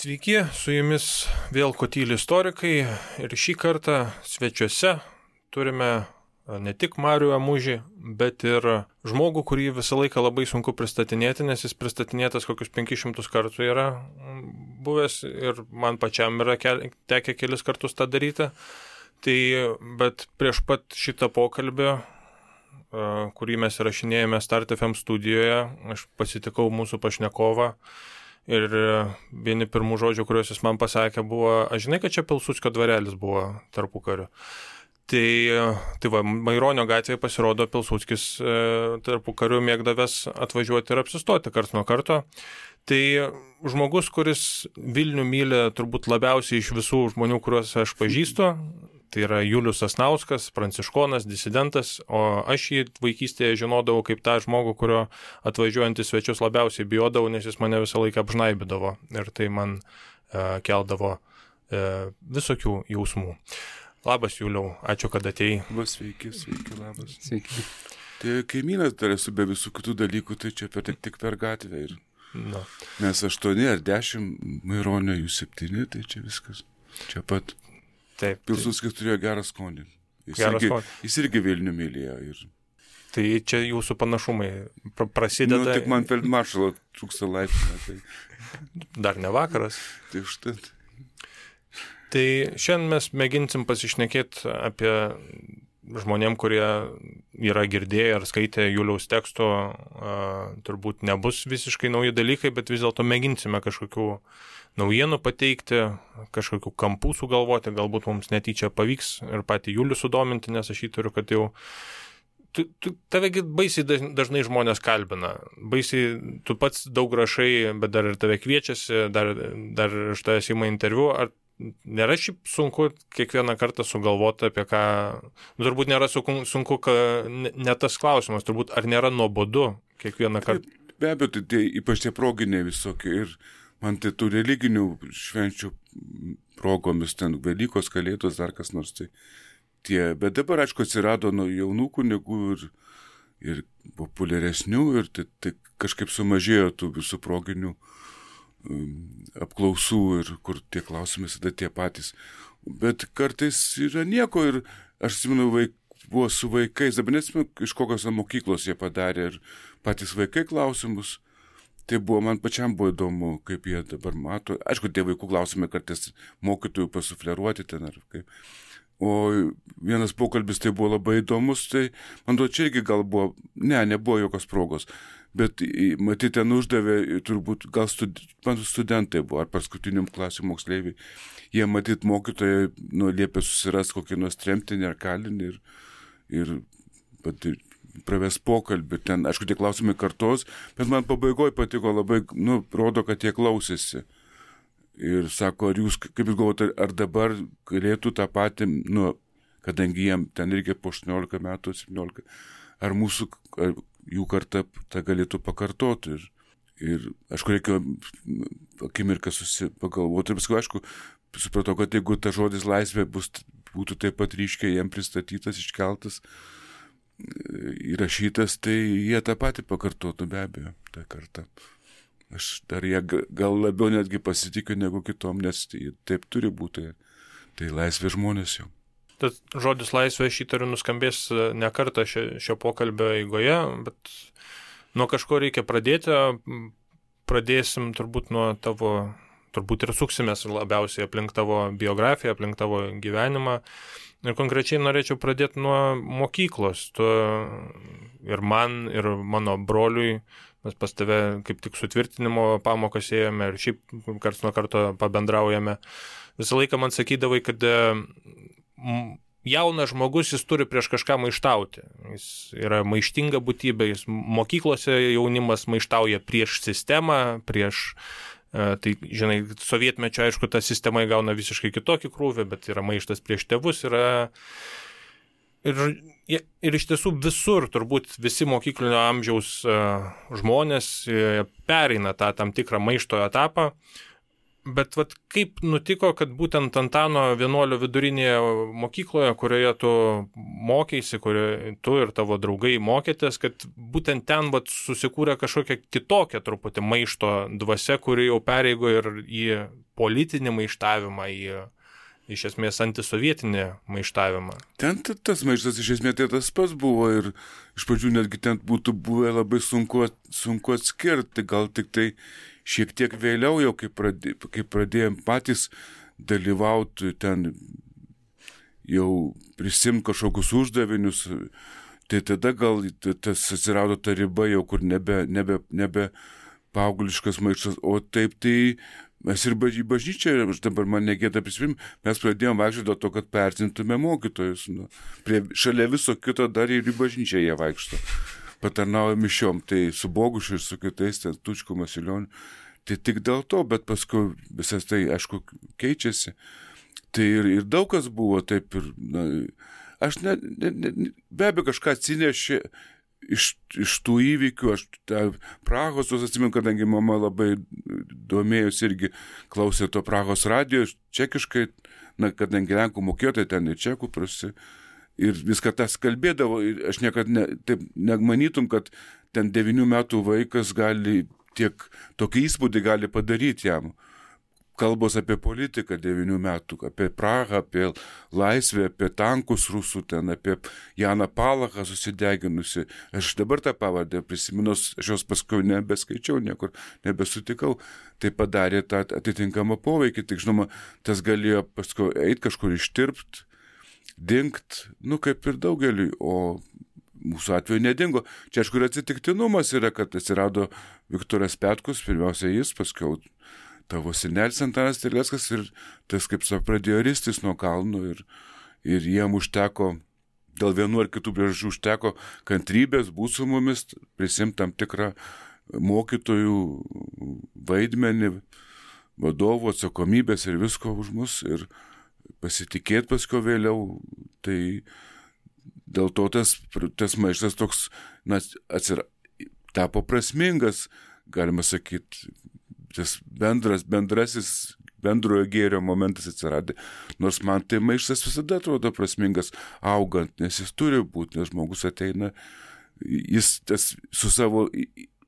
Sveiki, su jumis vėl Kotyli istorikai ir šį kartą svečiuose turime ne tik Marių Amužį, bet ir žmogų, kurį visą laiką labai sunku pristatinėti, nes jis pristatinėtas kokius 500 kartų yra buvęs ir man pačiam yra tekę kelis kartus tą daryti. Tai, bet prieš pat šitą pokalbį, kurį mes įrašinėjome Start FM studijoje, aš pasitikau mūsų pašnekovą. Ir vieni pirmų žodžių, kuriuos jis man pasakė, buvo, aš žinai, kad čia Pilsudskio dvarelis buvo tarpukariu. Tai va, Maironio gatvėje pasirodo Pilsudskis tarpukariu mėgdavęs atvažiuoti ir apsistoti karts nuo karto. Tai žmogus, kuris Vilnių myli turbūt labiausiai iš visų žmonių, kuriuos aš pažįstu, tai yra Julius Sasnauskas, pranciškonas, disidentas, o aš jį vaikystėje žinodavau kaip tą žmogų, kurio atvažiuojant į svečius labiausiai bijodavau, nes jis mane visą laiką apžnaibydavo ir tai man keldavo visokių jausmų. Labas, Juliau, ačiū, kad atėjai. Sveiki, labas. Sveiki. Tai kaimynas dar esu be visų kitų dalykų, tai čia tik per gatvę. Ir... No. Mes 8 ar 10, Maironio jų 7, tai čia viskas. Čia pat. Taip. Pilsudskis turėjo gerą skonį. Jis irgi Vilnių mylėjo. Ir... Tai čia jūsų panašumai prasideda. Tik man feldmaršalo trūksta laipsnio. Tai... Dar ne vakaras. Tai užtat. Tai šiandien mes mėginsim pasišnekėti apie žmonėm, kurie yra girdėję ar skaitę Juliaus teksto, turbūt nebus visiškai nauji dalykai, bet vis dėlto mėginsime kažkokių naujienų pateikti, kažkokių kampų sugalvoti, galbūt mums netyčia pavyks ir patį Julių sudominti, nes aš įtariu, kad jau tavegi baisiai dažnai žmonės kalbina, baisiai tu pats daug rašai, bet dar ir tave kviečiasi, dar iš tavęs ima interviu, ar nėra šiaip sunku kiekvieną kartą sugalvoti apie ką, turbūt nėra sunku, ne tas klausimas, turbūt ar nėra nuobodu kiekvieną kartą? Be abejo, tai ypač tie proginiai visokie ir man tai tų religinių švenčių progomis, ten Velykos, Kalėdos, dar kas nors tai tie, bet dabar, aišku, atsirado nuo jaunų kunigų ir populiaresnių ir tai kažkaip sumažėjo tų visų proginių apklausų ir kur tie klausimai visada tie patys. Bet kartais yra nieko ir aš atsimenu, buvo su vaikais, dabar neatsimenu, iš kokios mokyklos jie padarė ir patys vaikai klausimus. Tai buvo, man pačiam buvo įdomu, kaip jie dabar mato. Aišku, tie vaikų klausimai kartais mokytojų pasufleruoti ten ar kaip. O vienas pokalbis tai buvo labai įdomus, tai man duo čia irgi gal buvo, nebuvo jokios progos. Bet matyti ten uždavė, turbūt gal studentai buvo, ar paskutiniam klasių moksleiviai. Jie matyti mokytojai liepė susiras kokį nors tremtinį ar kalinį ir praves pokalbį. Ten, aišku, tie klausimai kartos, bet man pabaigoje patiko labai, rodo, kad jie klausėsi. Ir sako, ar jūs, kaip jūs galvote, ar dabar galėtų tą patį, kadangi jiem ten reikia po 18 metų, 17, ar jų karta tą galėtų pakartoti. Ir aišku, reikia akimirką pagalvoti. Ir paskui, aišku, supratau, kad jeigu ta žodis laisvė būtų taip pat ryškiai jiem pristatytas, iškeltas, įrašytas, tai jie tą patį pakartotų be abejo, tą kartą. Aš dar jie gal labiau netgi pasitikiu negu kitom, nes taip turi būti. Tai laisvė žmonės jau. Tas žodis laisvė aš įtariu nuskambės ne kartą šio pokalbio eigoje, bet nuo kažko reikia pradėti. Pradėsim turbūt nuo tavo, turbūt ir suksimės labiausiai aplink tavo biografiją, aplink tavo gyvenimą. Ir konkrečiai norėčiau pradėti nuo mokyklos. Tu ir man, ir mano broliui, mes pas tave kaip tik sutvirtinimo pamokas ėjome ir šiaip karts nuo karto pabendraujame. Visą laiką man sakydavai, kad jaunas žmogus, jis turi prieš kažką maištauti. Jis yra maištinga būtybė, mokyklose jaunimas maištauja prieš sistemą, prieš... Tai, žinai, sovietmečio, aišku, ta sistema įgauna visiškai kitokį krūvį, bet yra maištas prieš tėvus, ir iš tiesų visur, turbūt visi mokyklinio amžiaus žmonės pereina tą tam tikrą maišto etapą, bet vat, kaip nutiko, kad būtent Antano vienuolio vidurinėje mokykloje, kurioje tu mokėsi, kurioje tu ir tavo draugai mokėtės, kad būtent ten vat, susikūrė kažkokia kitokia truputį maišto dvasia, kuri jau pereigo ir į politinį maištavimą, į iš esmės antisovietinį maištavimą. Ten tas maištas iš esmės tai tas pats buvo ir iš pradžių netgi ten būtų buvę labai sunku atskirti, gal tik tai šiek tiek vėliau jau, kai pradėjom patys dalyvauti ten, jau prisimti kažkokius uždavinius, tai tada gal tas atsirado ta riba jau, kur nebe paaugliškas maištas, o taip tai mes ir bažnyčią, aš dabar man negėda prisimint, mes pradėjom vaikščioti dėl to, kad pertintume mokytojus. Šalia viso kito dar ir į bažnyčią jie vaikšto. Patarnauja mišiom, tai su Bogušiu ir su kitais, ten Tučku, Masilioniu. Tai tik dėl to, bet paskui visas tai, aišku, keičiasi. Tai ir daug kas buvo taip ir, aš be abejo kažką atsinešė iš tų įvykių, aš Prahos, atsimenu, kadangi mama labai domėjosi irgi klausė to Prahos radijo, čekiškai, kadangi lenkų mokėjo, tai ten ir čekų prasi, ir viską tas kalbėdavo, ir aš niekada taip nemanytum, kad ten 9 metų vaikas gali tokį įspūdį gali padaryti jam. Kalbos apie politiką 9 metų, apie Prahą, apie laisvę, apie tankus rusų ten, apie Janą Palachą susideginusi. Aš dabar tą pavardę prisiminus, aš jos paskui nebeskaičiau niekur, nebesutikau. Tai padarė tą atitinkamą poveikį, tik žinoma, tas galėjo paskui eiti kažkur ištirpt, dingt, kaip ir daugeliui, o mūsų atveju nedingo. Čia aišku ir atsitiktinumas yra, kad atsirado Viktoras Petkus, pirmiausia jis, paskui tavo senelis Antanas Terleckas ir tas, kaip pradėjo ristis nuo kalnų ir jiem užteko, dėl vienų ar kitų priežasčių užteko kantrybės, būt su mumis, prisimti tam tikrą mokytojų vaidmenį, vadovų atsakomybės ir visko už mus ir pasitikėti paskui vėliau. Tai dėl to tas maištas toks tapo prasmingas, galima sakyti, tas bendrasis bendrojo gėrio momentas atsiradė. Nors man tai maištas visada atrodo prasmingas augant, nes jis turi būti, nes žmogus ateina, jis su savo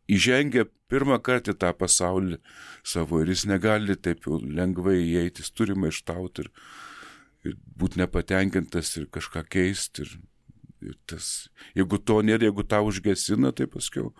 įžengia pirmą kartą tą pasaulį savo ir jis negali taip jau lengvai įeiti, jis turi maištauti ir būti nepatenkintas ir kažką keisti. Ir tas, jeigu to nėra, jeigu tą užgesina, tai paskiau,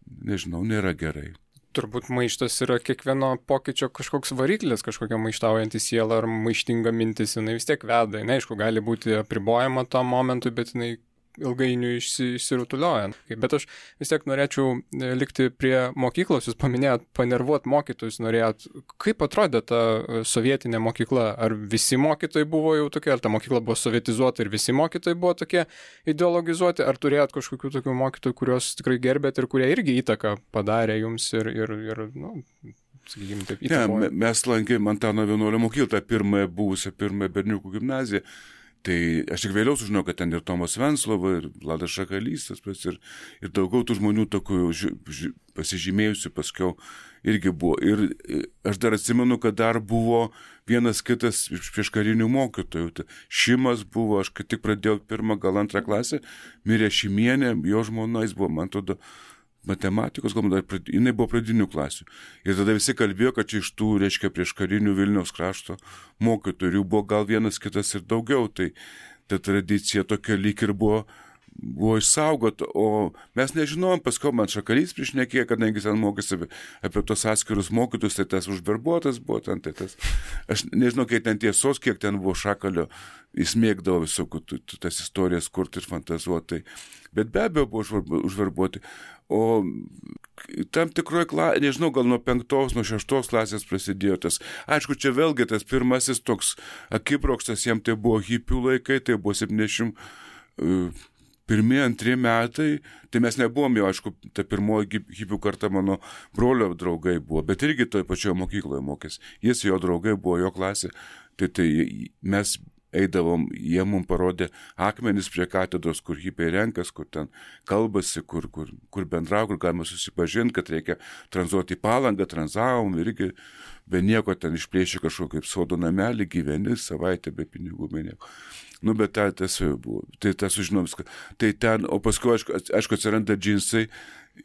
nežinau, nėra gerai. Turbūt maištas yra kiekvieno pokyčio kažkoks variklis, kažkokia maištaujanti siela ar maištinga mintis, jinai vis tiek veda. Jinai, aišku, gali būti apribojama tam momentui, bet jinai ilgainiui išsirutulioja. Bet aš vis tiek norėčiau likti prie mokyklos. Jūs paminėjot panervuot mokytojus, norėjot. Kaip atrodė ta sovietinė mokykla? Ar visi mokytojai buvo jau tokie, ar ta mokykla buvo sovietizuota ir visi mokytojai buvo tokie ideologizuoti? Ar turėjot kažkokių tokių mokytojų, kuriuos tikrai gerbėt ir kurie irgi įtaką padarė jums ir sakykime, taip įtakojo? Mes lankėm Antano vienuolio mokyklą, tą pirmąją berniukų gimnaziją. Tai aš tik vėliau sužinau, kad ten ir Tomas Venclova, ir Vladas Šakalys, ir daugiau tų žmonių tokių pasižymėjusių paskiau irgi buvo. Ir aš dar atsimenu, kad dar buvo vienas kitas prieškarinių mokytojų. Šimas buvo, aš kai tik pradėjau 1, gal 2 klasę, mirė Šimienė, jo žmona, jis buvo, man atrodo, matematikos, galbūt jinai buvo pradinių klasių. Ir tada visi kalbėjo, kad čia iš tų, reiškia, prieš karinių Vilniaus krašto mokytojų buvo gal vienas kitas ir daugiau. Tai ta tradicija tokia lyg ir buvo išsaugota, o mes nežinojom, paskui man Šakalys priešnekėjo, kadangi ten mokėsi apie tos atskirus mokytus, tai tas užverbuotas buvo ten, tai tas. Aš nežinau, kiek ten tiesos, kiek ten buvo Šakalio, jis mėgdavo visokių tas istorijas kurti ir fantazuoti. Bet be abejo buvo užverbuoti. O tam tikroje, nežinau, gal nuo 5, nuo 6 klasės prasidėjo tas. Aišku, čia vėlgi tas pirmasis toks akibrokštas, jam tai buvo hipių laikai, tai buvo 71, 2 metai, tai mes nebuvom jau, aišku, ta pirmoji hipių karta mano brolio draugai buvo, bet irgi toje pačioje mokykloje mokėsi. Jis, jo draugai buvo, jo klasė, tai mes eidavom, jie mums parodė akmenis prie katedros, kur hipiai renkas, kur ten kalbasi, kur bendrau, kur galima susipažinti, kad reikia tranzuoti į Palangą, tranzavom irgi be nieko ten išplėšė kažkokį kaip sodo namelį, gyveni savaitę be pinigų, be nieko. Nu, bet tas jau buvo. Tai tas sužinom viską. Tai ten, o paskui, aišku, atsiranda džinsai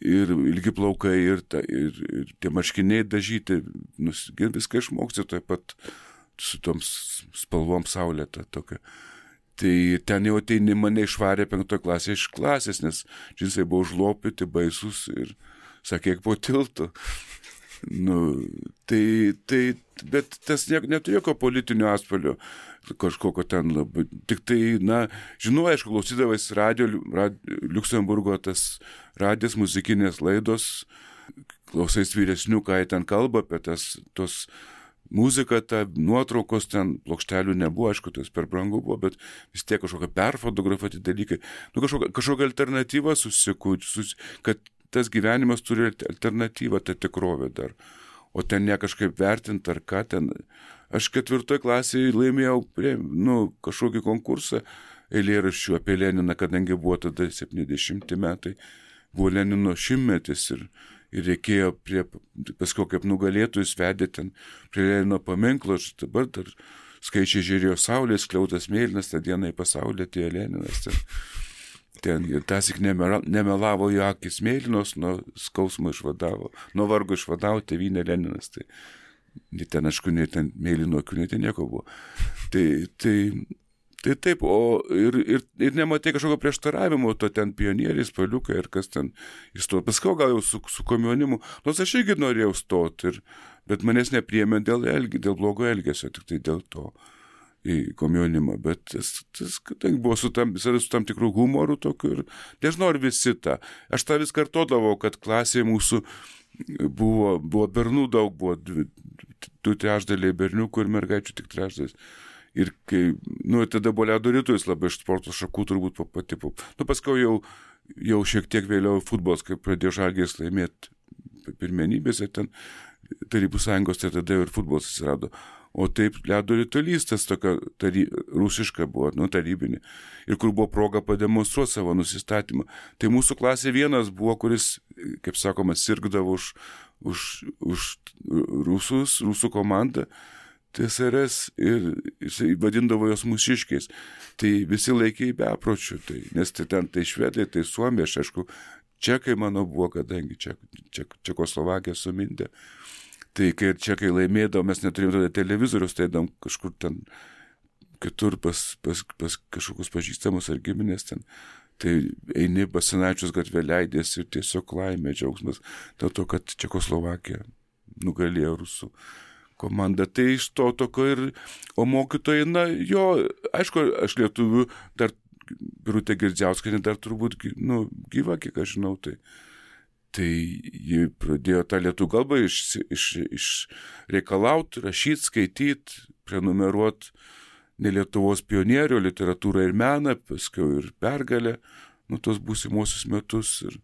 ir ilgi plaukai ir tie marškiniai dažyti, viską išmoksti taip pat su toms spalvom saulėta tokia. Tai ten jau ateini mane išvarė 5 klasė iš klasės, nes džinsai buvo užlopyti, baisus ir sakė, po tiltu. Nu, bet tas neturi jokio politinio atspalvio, kažkokio ten labai. Tik tai, žinau, aišku, klausydavais Liuksemburgo tas radijas, muzikinės laidos, klausais vyresnių, ką jie ten kalba apie tos muzika, ta nuotraukos ten, plokštelių nebuvo, aišku, tas per brangu buvo, bet vis tiek kažkokia perfotografuoti dalykai. Nu, kažkokia alternatyva kad tas gyvenimas turi alternatyvą, ta tikrovė dar. O ten ne kažkaip vertinti ar ką ten. Aš 4 klasėje laimėjau kažkokį konkursą eilėraščių apie Leniną, kadangi buvo tada 70 metai, buvo Lenino 100-metis ir reikėjo paskui kaip nugalėtojus vedė ten prie Lenino paminklo, aš dabar dar skaičiai žiūrėjo saulės, skliautas mėlynas, tą dieną į pasaulį atėjo Leninas. Ten ir tasik nemelavo jo akis mėlynos, nuo skausmo išvadavo, nuo vargo išvadavo tėvynė Leninas. Tai ten, aišku, ten mėlyno akių, ten nieko buvo. Tai taip, ir nematai kažkokio prieštaravimo, to ten pionieriai, spaliukai ir kas ten įstojo. Paskui gal jau su komjaunimu, nors aš irgi norėjau stoti, bet manęs nepriėmė dėl blogo elgesio, tik tai dėl to į komjaunimą. Bet tas kadangi buvo su tam tikrų humorų tokių ir nežinau, ar visi tą. Aš tą vis kartodavau, kad klasėje mūsų buvo bernų daug, buvo 2/3 berniukų ir mergaičių tik 1/3. Ir kai, tada buvo ledo rytulis labai iš sporto šakų turbūt patipau. Paskui jau šiek tiek vėliau futbolas, kai pradėjo Žalgiris laimėti pirmenybėse ten Tarybų Sąjungos, tai tada ir futbolas atsirado. O taip ledo rytulys, tas tokia rusiška buvo, tarybinė. Ir kur buvo proga pademonstruoti savo nusistatymą. Tai mūsų klasė vienas buvo, kuris, kaip sakoma, sirgdavo už rusų komandą. TSRS ir jisai vadindavo jos mūsiškiais. Tai visi laikė į bepročių, nes ten švedai, tai suomiai, aš aišku, čekai mano buvo, kadangi Čekoslovakija sumindė. Tai kai čekai laimėdavo, mes neturėjome tada televizorius, tai eidam kažkur ten kitur pas kažkokius pažįstamus ar giminės ten. Tai eini Basanavičiaus gatvė leidės ir tiesiog laimė, džiaugsmas dėl to, kad Čekoslovakija nugalėjo rusų komanda. Tai iš to tokio o mokytojai, aišku, aš lietuvių dar Birutė Girdziauskienė dar turbūt, gyva, kiek aš žinau, tai ji pradėjo tą lietuvių kalbą išreikalauti, rašyti, skaityti, prenumeruoti ne Lietuvos pionierių, literatūrą ir meną, paskui ir Pergalę, tos būsimuosius metus ir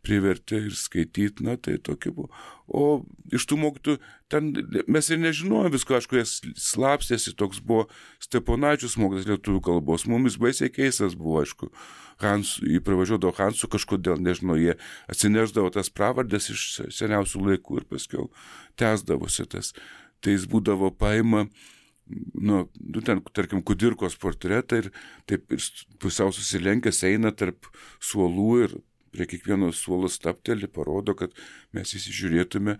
privertė ir skaityti, tai tokia buvo. O iš tų mokytų, ten mes ir nežinojom visko, aišku, jis slapstėsi, toks buvo Steponavičius mokytas lietuvių kalbos, mumis baisiai keistas buvo, aišku, jį pravažiuodavo Hansu kažkodėl, nežinau, jie atsineždavo tas pravardės iš seniausių laikų ir paskiau tęsdavosi tas. Tai jis būdavo paima, ten, tarkim, Kudirkos portretą ir taip ir pusiau susilenkęs eina tarp suolų ir prie kiekvieno suolo stapteli, parodo, kad mes įsižiūrėtume.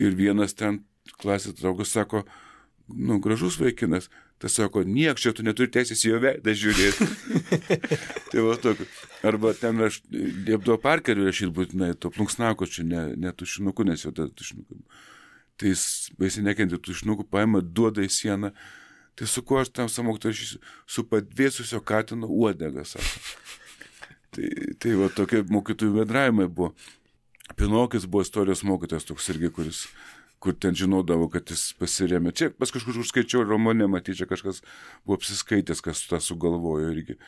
Ir vienas ten klasės draugas sako, gražus vaikinas. Tas sako, nieks čia tu neturi teisės į jo veidą žiūrėti. Tai va tokio. Arba ten aš liepdavo Parkeriui rašyti būtinai, to plunksnako čia, ne tušinuku, nes jau tada tušinuku. Tai jis baisiai nekentė tušinukų, paima, duoda į sieną. Tai su kuo aš tam samoktai rašysiu? Su padvėsusio katino uodega, sako. Tai va tokie mokytojų bendravimai buvo. Pinokis buvo istorijos mokytojas toks irgi, kur ten žinodavo, kad jis pasirėmė. Čia pas kažkur užskaičiau romane, matyčia, kažkas buvo apsiskaitęs, kas tą sugalvojo irgi.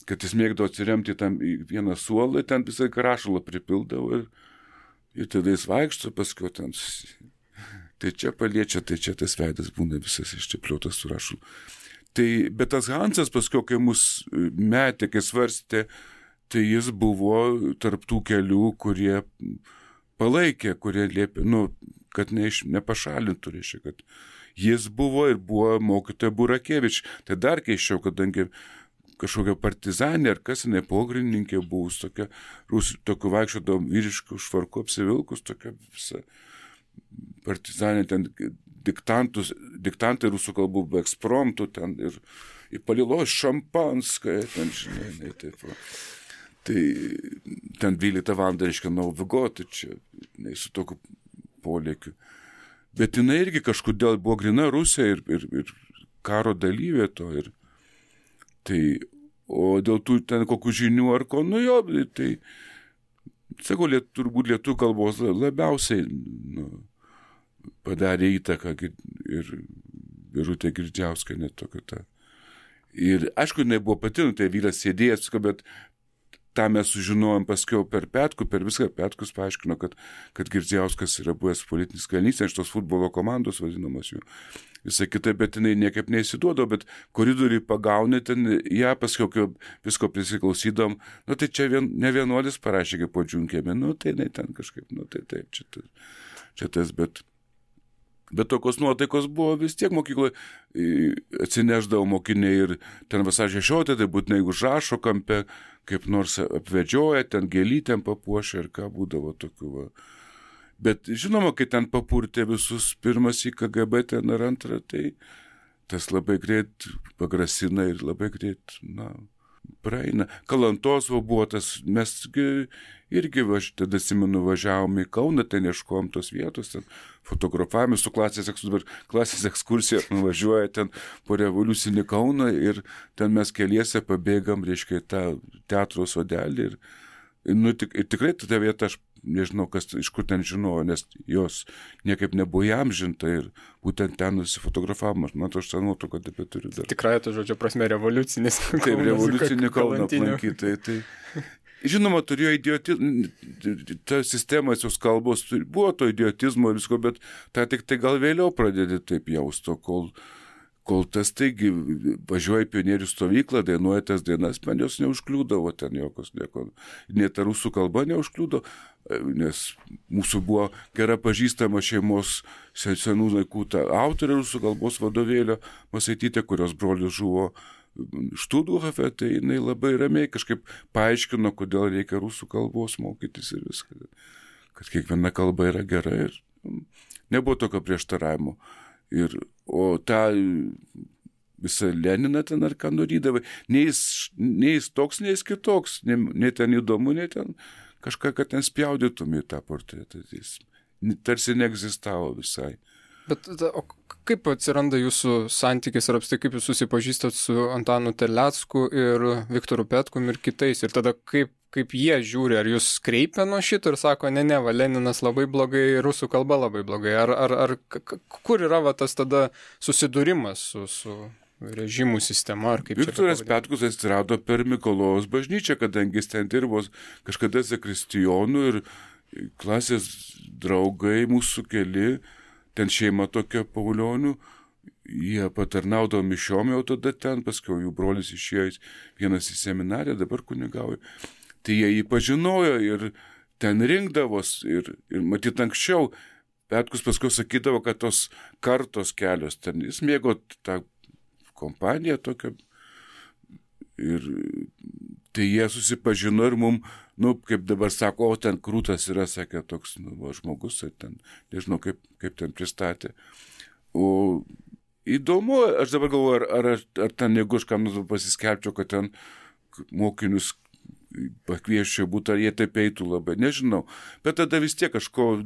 Kad jis mėgdavo atsiremti tam į vieną suolą, ten visai rašalą pripildavo ir tada jis vaikšto, paskui ten tai čia paliečia, tai čia tas veidas būna visas iščiapliotas su rašalu. Tai, bet tas Hansas paskui, kai mus metė, kai svarstė, tai jis buvo tarptų kelių, kurie palaikė, kurie liepė, kad nepašalintų, reiškia, kad jis buvo ir buvo mokytoja Burakevič. Tai dar keisčiau, kadangi kažkokia partizanė ar kas, jinai pogrindininkė buvus, tokia, tokiu vaikščiodom vyriškų švarku apsivilkus, tokia visa partizanė, ten diktantai rusų kalbų be ekspromtų, ten ir įpalilos šampanskąją, ten, žinai, taip. Tai ten 12 valandą, reiškia, Nauvigo, tai čia, su tokiu polėkiu. Bet jinai irgi kažkodėl buvo grina Rusija ir karo dalyvė to. O dėl tų ten kokių žinių ar ko, tai, sakau, turbūt lietuvių kalbos labiausiai padarė įtaką ir Birutė Girdžiauskienė tokia ta. Ir aišku, jinai buvo pati, tai vyras sėdėjęs, bet tą mes sužinojom paskiau per Petkų, per viską Petkus paaiškino, kad Girdziauskas yra buvęs politinis kalinys, iš tos futbolo komandos vadinamas jų. Visą kitą, bet jinai niekaip neįsiduodo, bet koridoriui pagaunė ten, ją paskiau visko prisiklausydom, tai čia ne vienuolis parašė, kaip po džiunkėme, tai jinai ten kažkaip, tai taip, čia tas, bet tokios nuotaikos buvo vis tiek mokykloje, atsineždavo mokiniai ir ten vasario 16, tai būtinai užrašo kampe, kaip nors apvedžioja, ten gėlytėm papuošia ir ką būdavo tokių. Va. Bet žinoma, kai ten papurtė visus pirmas į KGB ten ar antrą, tai tas labai greit pagrasina ir labai greit, praeina. Kalantos buvo tas, mes irgi, tada atsimenu, važiavom į Kauną, ten ieškojom tos vietos, ten fotografavome su klasės ekskursija, nuvažiuoja ten po revoliucinį Kauną ir ten mes keliese pabėgam, reiškia, tą teatro sodelį ir tikrai ta vieta, aš nežinau, iš kur ten žinojo, nes jos niekaip nebuvo įamžinta ir būtent ten nusifotografavimas. Man aš tą nuotrauką taip turiu dar. Tikrai, to žodžio prasme, revoliucinis Kaunas. Taip, revoliucinį Kauną aplankyti. Tai, žinoma, turėjo ta sistemas, jos kalbos, buvo to idiotizmo ir visko, bet tą tik tai gal vėliau pradėti taip jausto, kol tas taigi važiuoja į pionierių stovyklą, dainuoja tas dainas, man jos neužkliūdavo ten jokios, net ta rusų kalba neužkliūdo, nes mūsų buvo gera pažįstama šeimos senų laikų ta autorė rusų kalbos vadovėlio Masaitytė, kurios brolis žuvo Štuthofe, tai jinai labai ramiai kažkaip paaiškino, kodėl reikia rusų kalbos mokytis ir viską, kad kiekviena kalba yra gera ir nebuvo tokio prieštaravimo. O tą visą Leniną ten ar ką norydavai, nei jis toks, nei jis kitoks, nei ten įdomu, nei ten kažką, kad ten spjaudytum į tą portretą. Jis tarsi neegzistavo visai. Bet o kaip atsiranda jūsų santykis ir apstai, kaip jūs susipažįstat su Antanu Terlecku ir Viktoru Petkum ir kitais? Ir tada kaip jie žiūri, ar jūs kreipia nuo šito ir sako, ne, Leninas labai blogai, rusų kalba labai blogai. Ar kur yra tas tada susidūrimas su režimų sistema? Ar kaip Viktoras Petkus atsirado per Mikalojos bažnyčią, kadangi jis ten dirbo kažkada zakristijonu ir klasės draugai mūsų keli, ten šeima tokia Paulionių, jie patarnaudavo mišiom jau tada ten, paskiau jų brolis išėjo vienas į seminariją, dabar kunigauja. Tai jie jį pažinojo ir ten rinkdavos ir matyt anksčiau Petkus paskui sakydavo, kad tos kartos kelios ten, jis mėgo tą kompaniją tokią ir tai jie susipažino ir mum, kaip dabar sako, ten krūtas yra, sakė, toks žmogus, ten, nežinau, kaip ten pristatė. O įdomu, aš dabar galvoju, ar ten, jeigu aš kam pasiskelbčiau, kad ten mokinius pakvieščiau būtų, ar jie taip eitų labai, nežinau. Bet tada vis tiek kažko,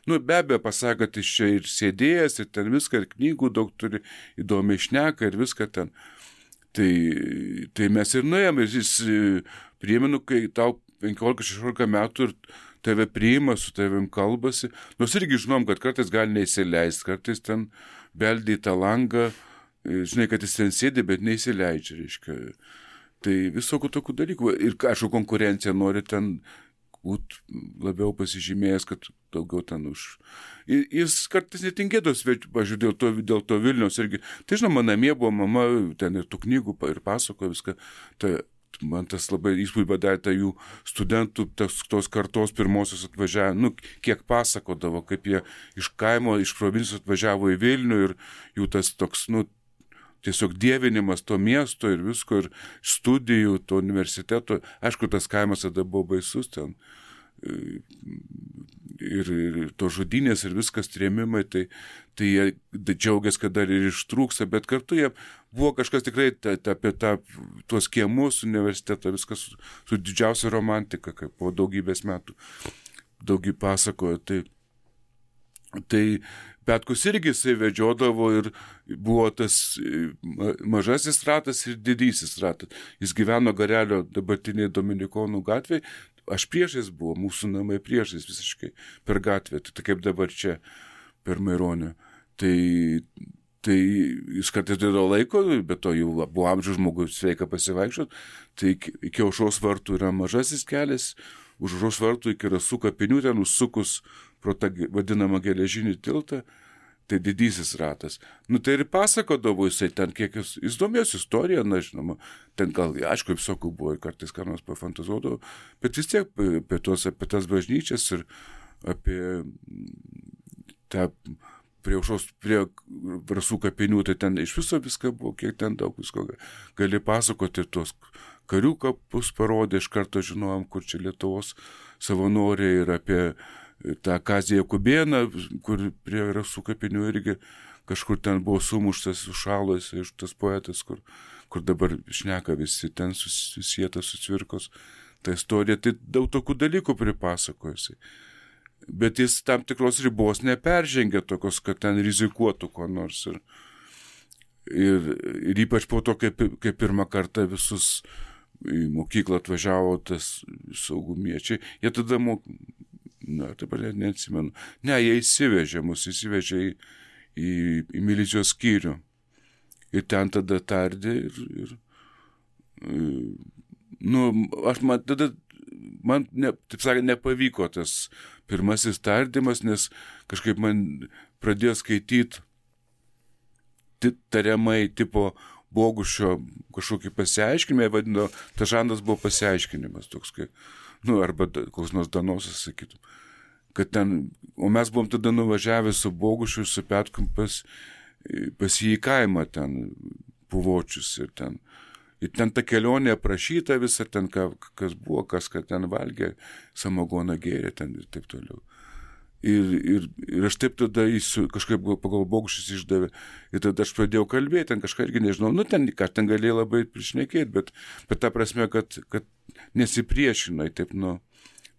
be abejo pasakė, kad jis čia ir sėdėjęs, ir ten viską, ir knygų daug turi, įdomiai šneka ir viską ten. Tai mes ir nuėjom, ir jis priėminu, kai tau 15-16 metų ir tave priima, su tavim kalbasi, nors irgi žinom, kad kartais gali neįsileisti, kartais ten beldė į tą langą, žinai, kad jis ten sėdi, bet neįsileidžia, reiškia. Tai visokių tokių dalykų. Ir aišku, konkurencija nori ten galbūt labiau pasižymėjęs, kad daugiau ten už. Jis kartais netingėdavo svečių, pažiūrėjau, dėl to Vilniaus irgi. Tai žinoma, namie buvo mama, ten ir tų knygų ir pasakojo viską. Tai man tas labai įspūdį padarė, tai jų studentų tos kartos pirmosios atvažiavo, kiek pasakodavo, kaip jie iš kaimo, iš provincijos atvažiavo į Vilnių ir jų tas toks, tiesiog dievinimas to miesto ir visko, ir studijų, to universiteto. Aišku, tas kaimas tada buvo baisus ten. Ir to žudynės ir viskas trėmimai, tai jie džiaugiasi, kad dar ir ištrūksta, bet kartu jie buvo kažkas tikrai apie tuos kiemus universitetą, viskas su didžiausia romantika, kaip po daugybės metų daugybė pasakojo. Tai Petkus irgi jisai vedžiodavo ir buvo tas mažasis ratas ir didysis ratas. Jis gyveno Garelio dabartiniai Dominikonų gatvėje. Aš priešais buvo, mūsų namai priešais visiškai per gatvę, tai kaip dabar čia per Maironį. Tai jis kartais dėdavo laiko, bet to jau buvo amžiaus žmogus sveika pasivaikščiot. Tai iki Aušros vartų yra mažasis kelias, už Aušros vartų iki Rasų kapinių, ten užsukus pro tą vadinamą geležinį tiltą, tai didysis ratas. Tai ir pasakodavo jisai ten, kiek jis domėjosi istoriją, žinoma, ten gal, aišku, visokių buvo, kartais ką nors pafantazuodavo, bet vis tiek apie tas bažnyčias ir apie tą prie Rasų kapinių, tai ten iš viso viską buvo, kiek ten daug visko gali pasakoti, tos karių kapus parodė, iš karto žinojom, kur čia Lietuvos savanoriai, ir apie tą Kazį Jakubėną, kur prie Rasų kapinių irgi kažkur ten buvo sumuštas, sušalas, iš tas poetas, kur dabar šneka visi, ten susietas su Cvirkos ta istorija, tai daug tokių dalykų pripasakojusi. Bet jis tam tikros ribos neperžengė tokios, kad ten rizikuotų ko nors. Ir ypač po to, kai pirmą kartą visus į mokyklą atvažiavo tas saugumiečiai, jie tada dabar neatsimenu. Jie įsivežė į milicijos skyrių. Ir ten tada tardė ir taip sakant, nepavyko tas pirmasis tardymas, nes kažkaip man pradėjo skaityti tariamai tipo Bogušio kažkokį pasiaiškinimą, vadino, tas žanras buvo pasiaiškinimas toks, arba koks nors Danosas, sakytum. O mes buvom tada nuvažiavę su Bogušiu ir su Petkum pas jį į kaimą ten, Puvočius, ir ten ta kelionė aprašyta visą, ten kas buvo, kas ten valgė, samagoną gėrė ten ir taip toliau. Ir aš taip tada kažkaip pagal Bogušius išdavė, ir tada aš pradėjau kalbėti, ten kažką irgi nežinau, ten galėjau labai prišnekėti, bet ta prasme, kad nesipriešinai, taip,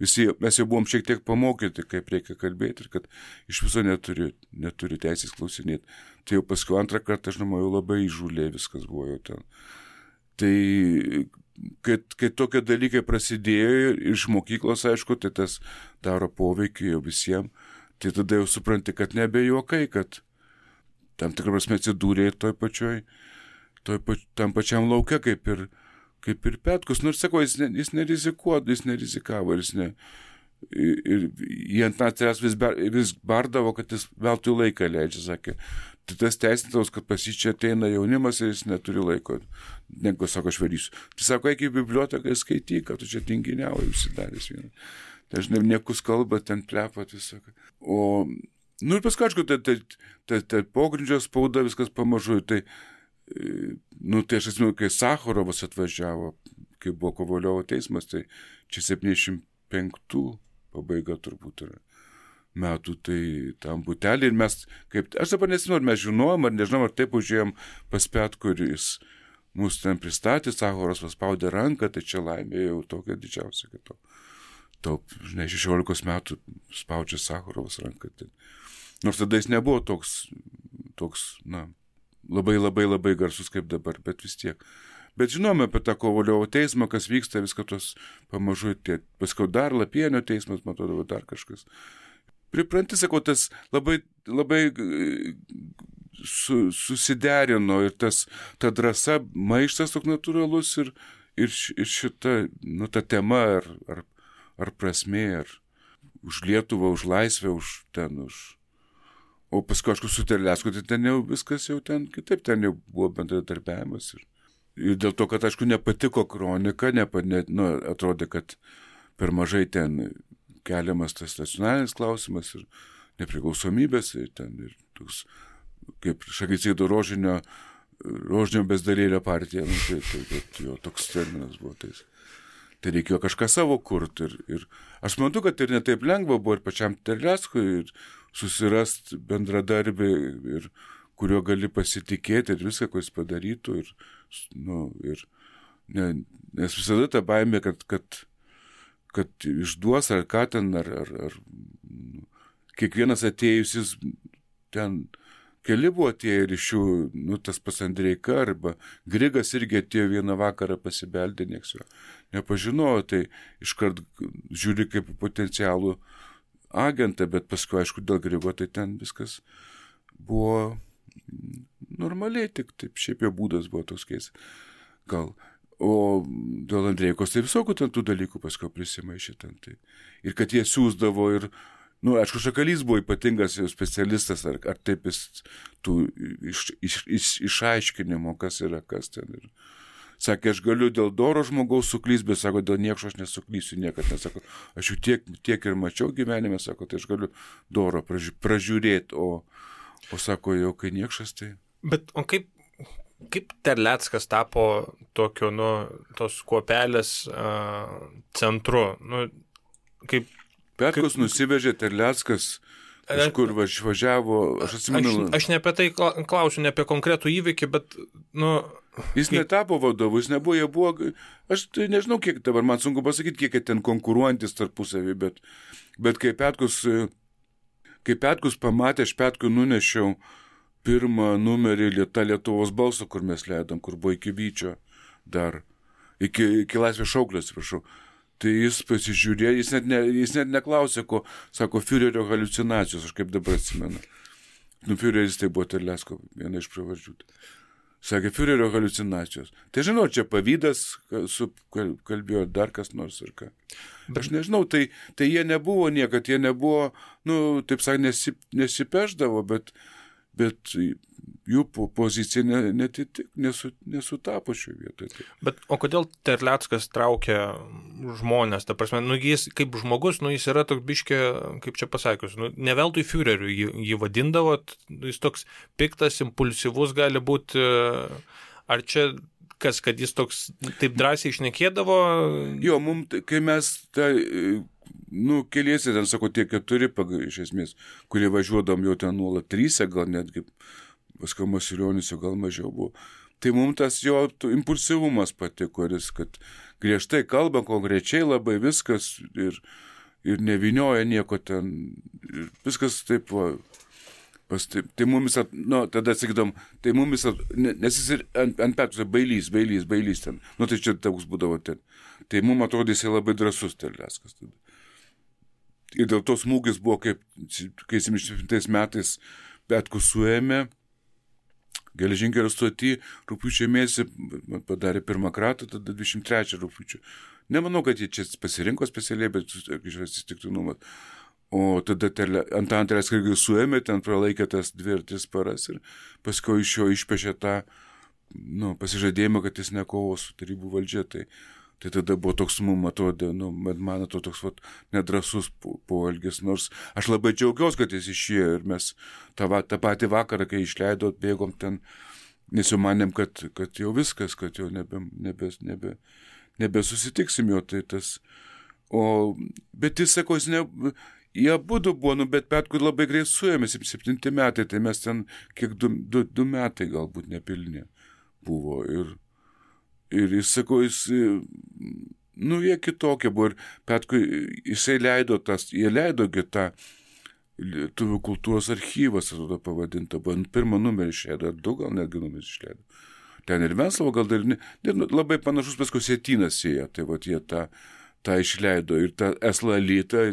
visi, mes jau buvom šiek tiek pamokyti, kaip reikia kalbėti, ir kad iš viso neturi teisės klausinėti. Tai jau paskui antrą kartą, aš jau labai įžūlė viskas buvo jau ten. Tai, kai tokie dalykai prasidėjo iš mokyklos, aišku, tai tas daro poveikį jau visiems, tai tada jau supranti, kad nebejuokai, kad tam tikrą prasme atsidūrė tam pačiam lauke, kaip ir Petkus. Nors sako, jis nerizikavo, ir jie ant natūrės vis bardavo, kad jis veltui laiką leidžia, sakė. Tai tas teisintaus, kad pas jį čia ateina jaunimas ir jis neturi laiko. Negu, sako, aš varysiu. Tai sako, eik į biblioteką skaityk, kad tu čia tinginiauji, užsidaręs vieną. Tai aš niekus kalba, ten plepat viską. Ir paskui, aišku, tai pogrindžio spauda viskas pamažu. Tai aš atsimenu, kai Sacharovas atvažiavo, kai buvo Kovaliovo teismas, tai čia 75 pabaiga turbūt yra metų, tai tam butelį, ir mes, aš dabar nežinau, ar mes žinojom, ar nežinom, ar taip užėjom pas Petkų, ir jis mus ten pristatė, Sacharovas paspaudė ranką, tai čia laimė jau tokia didžiausia, kad 16 metų spaudžia Sacharovas ranką. Nors tada jis nebuvo toks, labai, labai, labai garsus kaip dabar, bet vis tiek. Bet žinome apie tą Kovaliovo teismą, kas vyksta, viską tos pamažu, paskui dar Lapienio teismas, man atrodo, dar kažkas. Pripranti, sakau, tas labai, labai susiderino, ir ta drąsa, maištas toks natūralus, ir šita, ta tema, ar ar prasmė, ar už Lietuvą, už laisvę, O paskui, aišku, su Terlecku, tai ten jau viskas jau ten kitaip, ten jau buvo bendradarbiavimas. Ir dėl to, kad, aišku, nepatiko kronika, atrodė, kad per mažai ten keliamas tas nacionalinis klausimas ir nepriklausomybės, ir ten ir toks, kaip Šagicėdo rožinio bezdarėlio partija, tai jo toks terminas buvo. Tai reikėjo kažką savo kurti. Ir aš manau, kad ir netaip lengva buvo ir pačiam Terleckui ir susirast bendradarbį, ir kuriuo gali pasitikėti ir viską, ko jis padarytų. Nes visada ta baimė, kad išduos ar ką ten, ar kiekvienas atėjusis ten, keli buvo atėję ir iš jų, tas pats Andreika arba Grigas irgi atėjo vieną vakarą pasibeldė, nieks jo nepažinojo, tai iškart žiūri kaip potencialų agentą, bet paskui, aišku, dėl Grigo, tai ten viskas buvo normaliai, tik taip, šiaip jo būdas buvo toks keistas. Gal. O dėl Andreikos, tai visokių ten tų dalykų paskui prisimaišė ten. Tai. Ir kad jie siūsdavo ir, aišku, Šakalys buvo ypatingas specialistas, ar taip jis tų išaiškinimo, kas yra, kas ten. Ir sakė, aš galiu dėl doro žmogaus suklysti, bet sako, dėl niekšo aš nesuklysiu niekad. Nesako, aš jų tiek ir mačiau gyvenime, sako, tai aš galiu doro pražiūrėti, o sako, jau kai niekšas, tai... Bet o kaip Terleckas tapo tokio, tos kuopelės centru? Kaip... Petkus nusivežė Terleckas, kažkur važiavo, aš atsimenu... Aš ne apie tai klausiu, ne apie konkretų įvykį, bet, Jis netapo vadovu, jis nebuvo, jie buvo, aš tai nežinau, kiek dabar, man sunku pasakyti, kiek ten konkuruojantis tarpusavį, bet kai Petkus pamatė, aš Petkui nunešiau pirmą numerį Lietuvos balso, kur mes leidom, kur buvo iki Vyčio dar, iki Laisvės šauklio, atsiprašau. Tai jis pasižiūrėjo, jis net neklausė, ko, sako, Führerio haliucinacijos, aš kaip dabar atsimenu. Führeris tai buvo Terlecko, viena iš pravardžių. Sakė, Führerio haliucinacijos. Tai žinau, čia pavydas, kalbėjo dar kas nors ir ką. Aš nežinau, tai jie nebuvo niekad, jie nebuvo, taip sakant, nesipeždavo, bet jų pozicija nesutapo šioje vietoje. Bet o kodėl Terleckas traukia žmonės? Ta prasme, jis kaip žmogus, jis yra toks biškė, kaip čia pasakius, ne veltui Führeriu jį vadindavo, jis toks piktas, impulsyvus gali būti, ar čia kad jis toks taip drąsiai šnekėdavo? Jo, kai mes keliesi, ten sako, tie 4 iš esmės, kurie važiuodam jau ten nuolat 3, gal netgi paskui Masilionis jau gal mažiau buvo. Tai mums tas jo impulsyvumas patiko, kad griežtai kalba, konkrečiai labai viskas ir nevinioja nieko ten. Ir viskas taip, tai mumis, tada sakydom, tai mumis, nes jis ir ant Petkus bailys ten. Tai čia toks būdavo ten. Tai mums atrodė, jis labai drąsus Terleckas tada. Ir dėl to smūgis buvo, kai 77 metais Petkus suėmė, geležinkelio stoty, rugpjūčio mėnesį padarė pirmą kratą, tada 23 rugpjūčio. Nemanau, kad jie čia pasirinko specialiai, bet atsitiktinumas. O tada Antaną Terlecką suėmė, ten pralaikė tas 2 ar 3 paras ir paskui iš jo išpešė tą pasižadėjimą, kad jis nekovos su tarybų valdžia. Tai tada buvo toks, man atrodo, toks nedrasus poelgis, nors aš labai džiaugiausi, kad jis išėjo ir mes tą patį vakarą, kai išleido, bėgom ten, nes jau manėm, kad jau viskas, kad jau nebesusitiksim jo, tai tas. Bet jis sako, jie abudu buvo, bet Petkui labai greit suėmė, 7 metai, tai mes ten kiek 2 metai galbūt nepilnė buvo ir jis sako, jie kitokie buvo ir Petkui, jie leido tą Lietuvių kultūros archyvas, atrodo pavadinta, buvo pirmą numerį išleido, 2 gal netgi numerį išleido. Ten ir Venclova gal dar labai panašus paskui Sietynas ėjo, tai jie tą išleido ir tą Eslalytą,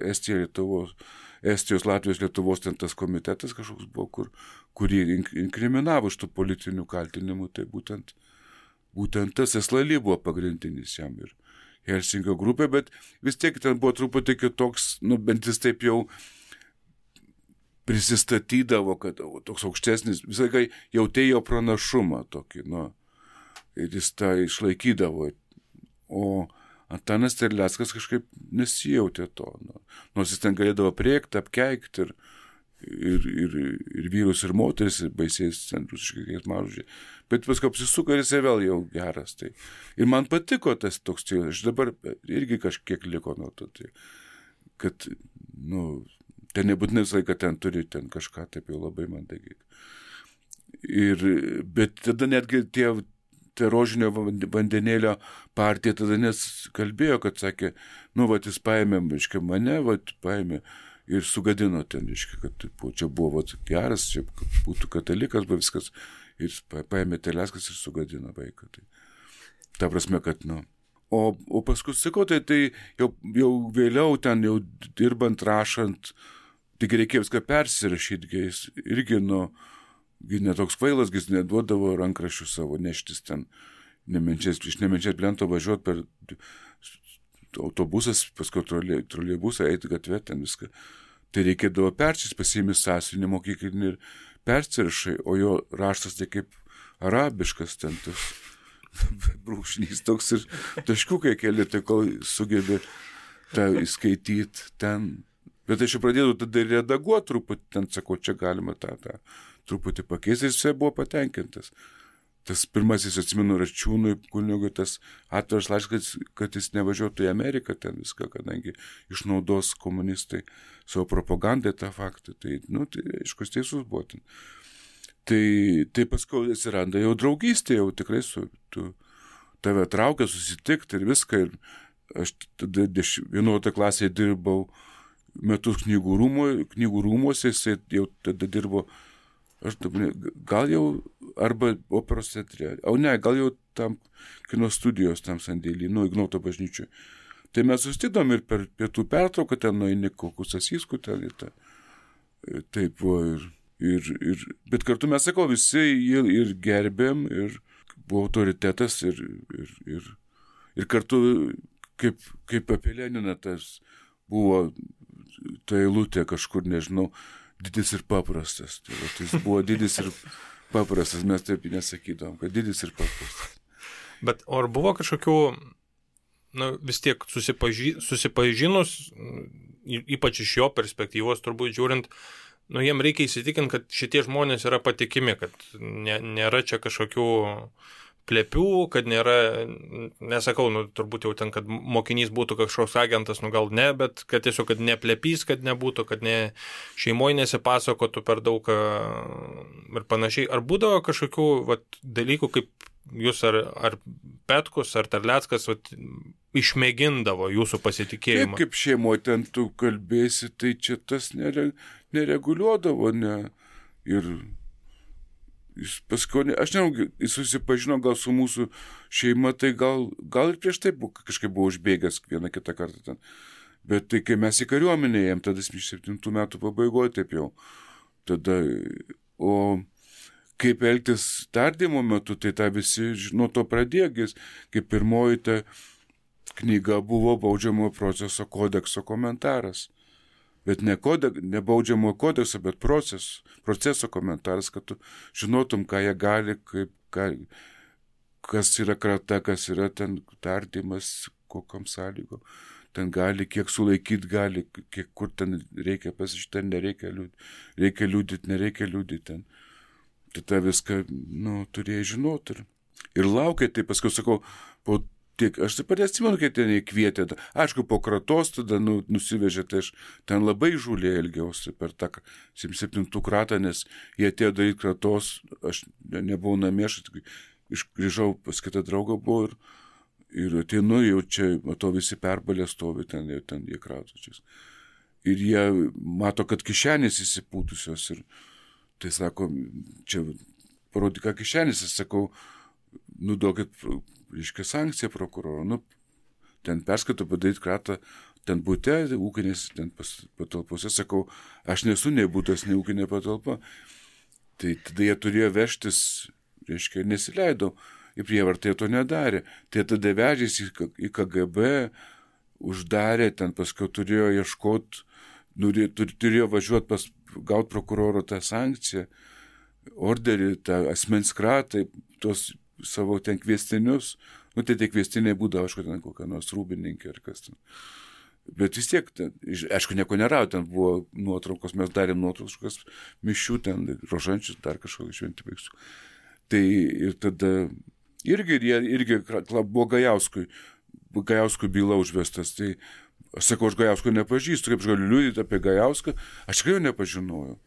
Estijos, Latvijos, Lietuvos ten tas komitetas kažkoks buvo, kurį inkriminavo iš tų politinių kaltinimų, tai būtent tas Eslaly buvo pagrindinis jam ir Helsinkio grupė, bet vis tiek ten buvo truputį kitoks, bent jis taip jau prisistatydavo, kad toks aukštesnis, visą laiką jautėjo pranašumą tokį, ir jis tą išlaikydavo. O Antanas Terleckas kažkaip nesijautė to, nors jis ten galėdavo priekti, apkeikti ir vyrus, ir moteris, ir baisiais ten rusiškai mažužiai. Bet paskui apsisuko ir jisai vėl jau geras. Tai. Ir man patiko tas toks stilius. Aš dabar irgi kažkiek liko nuo to. Tai, kad, ten nebūtinai visą laiką ten turi ten kažką taip jau labai mandagiai. Bet tada netgi tie rožinio vandenėlio partija tada nes kalbėjo, kad sakė, jis paėmė, mane, paėmė ir sugadino ten, kad čia buvo geras, čia būtų katalikas, buvo viskas, ir paėmė Terleckas ir sugadino vaiką. Tai, ta prasme, kad, O paskui, sakau, tai jau vėliau ten, jau dirbant, rašant, tik reikėjo viską persirašyti, jis irgi, netoks kvailas, jis neduodavo rankraščių savo neštis ten, iš Nemenčės Plento važiuoti per autobusas, paskui troleibusą, eiti gatvę, ten viską. Tai reikėdavo persis, pasiėmi sąsiuvinį mokyklinį ir persirašai, o jo raštas tai kaip arabiškas ten tas brūkšnys toks ir taškiukai keli, tai kol sugebė tą įskaityti ten. Bet aš jau pradėjau tada redaguoti truputį, ten sakau, čia galima tą truputį pakeisti, ir jisai buvo patenkintas. Tas pirmasis, atsimenu, Račiūnui kunigui tas atviras laiškas, kad jis nevažiuotų į Ameriką ten viską, kadangi išnaudos komunistai savo propagandai tą faktą. Tai, aišku, teisus buvo ten. Tai paskui atsiranda jau draugystė, jau tikrai tave traukia susitikti ir viską. Ir aš tada 11 klasėje dirbau metus knygų rūmuose, jisai jau tada dirbo, gal jau arba operos teatre, gal jau tam kino studijos tam sandėlį, Ignoto bažnyčiui. Tai mes susitikdom ir per pietų pertrauką ten nueini kokius Asiskų ten ir tą. Taip buvo bet kartu mes, sakau, visi ir gerbėm, ir buvo autoritetas, ir kartu kaip apie Leniną tas buvo ta eilutė kažkur, nežinau, didis ir paprastas. Tai jis buvo didis ir paprastas, mes taip nesakydom, kad didis ir paprastas. Bet ar buvo kažkokių, vis tiek susipažinus, ypač iš jo perspektyvos turbūt žiūrint, jiem reikia įsitikinti, kad šitie žmonės yra patikimi, kad nėra čia kažkokių plepių, kad nėra, nesakau, turbūt jau ten, kad mokinys būtų kažkoks agentas, gal ne, bet kad tiesiog, kad neplepys, kad nebūtų, kad šeimoje nesipasakotų per daug ir panašiai. Ar būdavo kažkokių dalykų, kaip jūs ar Petkus, ar Terleckas išmėgindavo jūsų pasitikėjimą? Taip, kaip šeimoje ten tu kalbėsi, tai čia tas nereguliuodavo, ir jis paskui, aš nežinau, jis susipažino gal su mūsų šeima, tai gal ir prieš tai kažkaip buvo užbėgęs vieną kitą kartą ten. Bet tai, kai mes į kariuomenę ėjom, tada 7 metų pabaigoje, taip jau. Tada, o kaip elgtis tardymo metu, tai tą visi nuo to pradėgis, kaip pirmoji ta knyga buvo baudžiamojo proceso kodekso komentaras. Bet ne baudžiamojo kodekso, bet proceso komentaras, kad tu žinotum, ką jie gali, kas yra krata, kas yra ten tardymas, kokiam sąlygom. Ten gali, kiek sulaikyti gali, kur ten reikia pasižiūrėti, ten nereikia liūdyti, reikia liūdyti, nereikia liūdyti ten. Tai tą viską, turėjai žinoti. Ir laukia, tai paskui sakau, aš taip pat atsimenu, kai ten įkvietė. Aišku, po kratos tada nusivežė, tai aš ten labai žūliai elgiausi per tą 7 kratą, nes jie atėjo daryti kratos, aš nebuvau namie, aš grįžau pas kitą draugą buvo ir ateinu, jau čia, matau, visi perbalė stovi ten jie kratočiais. Ir jie mato, kad kišenės įsipūtusios ir tai sako, čia parodė, ką kišenės, aš sakau, duokit, reiškia, sankciją prokuroro, ten perskaito padaryti kratą, ten bute, ūkinės, ten patalpose, sakau, aš nesu nei butas, nei ūkinė patalpa. Tai tada jie turėjo vežtis, reiškia, nesileido į prievartą jie to nedarė. Tai tada vežėsi į KGB, uždarė, ten paskui turėjo ieškoti, turėjo važiuoti gauti prokuroro tą sankciją, orderį, tą asmens kratą, tos savo ten kviestinius. Nu, tai tie kviestiniai būdavo, aišku, ten kokia nors rūbininkė ar kas ten. Bet vis tiek, aišku, nieko nerado, ten buvo nuotraukos, mes darėm nuotraukos mišių, ten rožančius, dar kažkokį šventį baigsiu. Tai ir tada irgi buvo Gajauskui byla užvestas. Tai aš sakau, aš Gajausko nepažįstu, kaip aš galiu liudyti apie Gajauską, aš tikrai jo nepažinojau.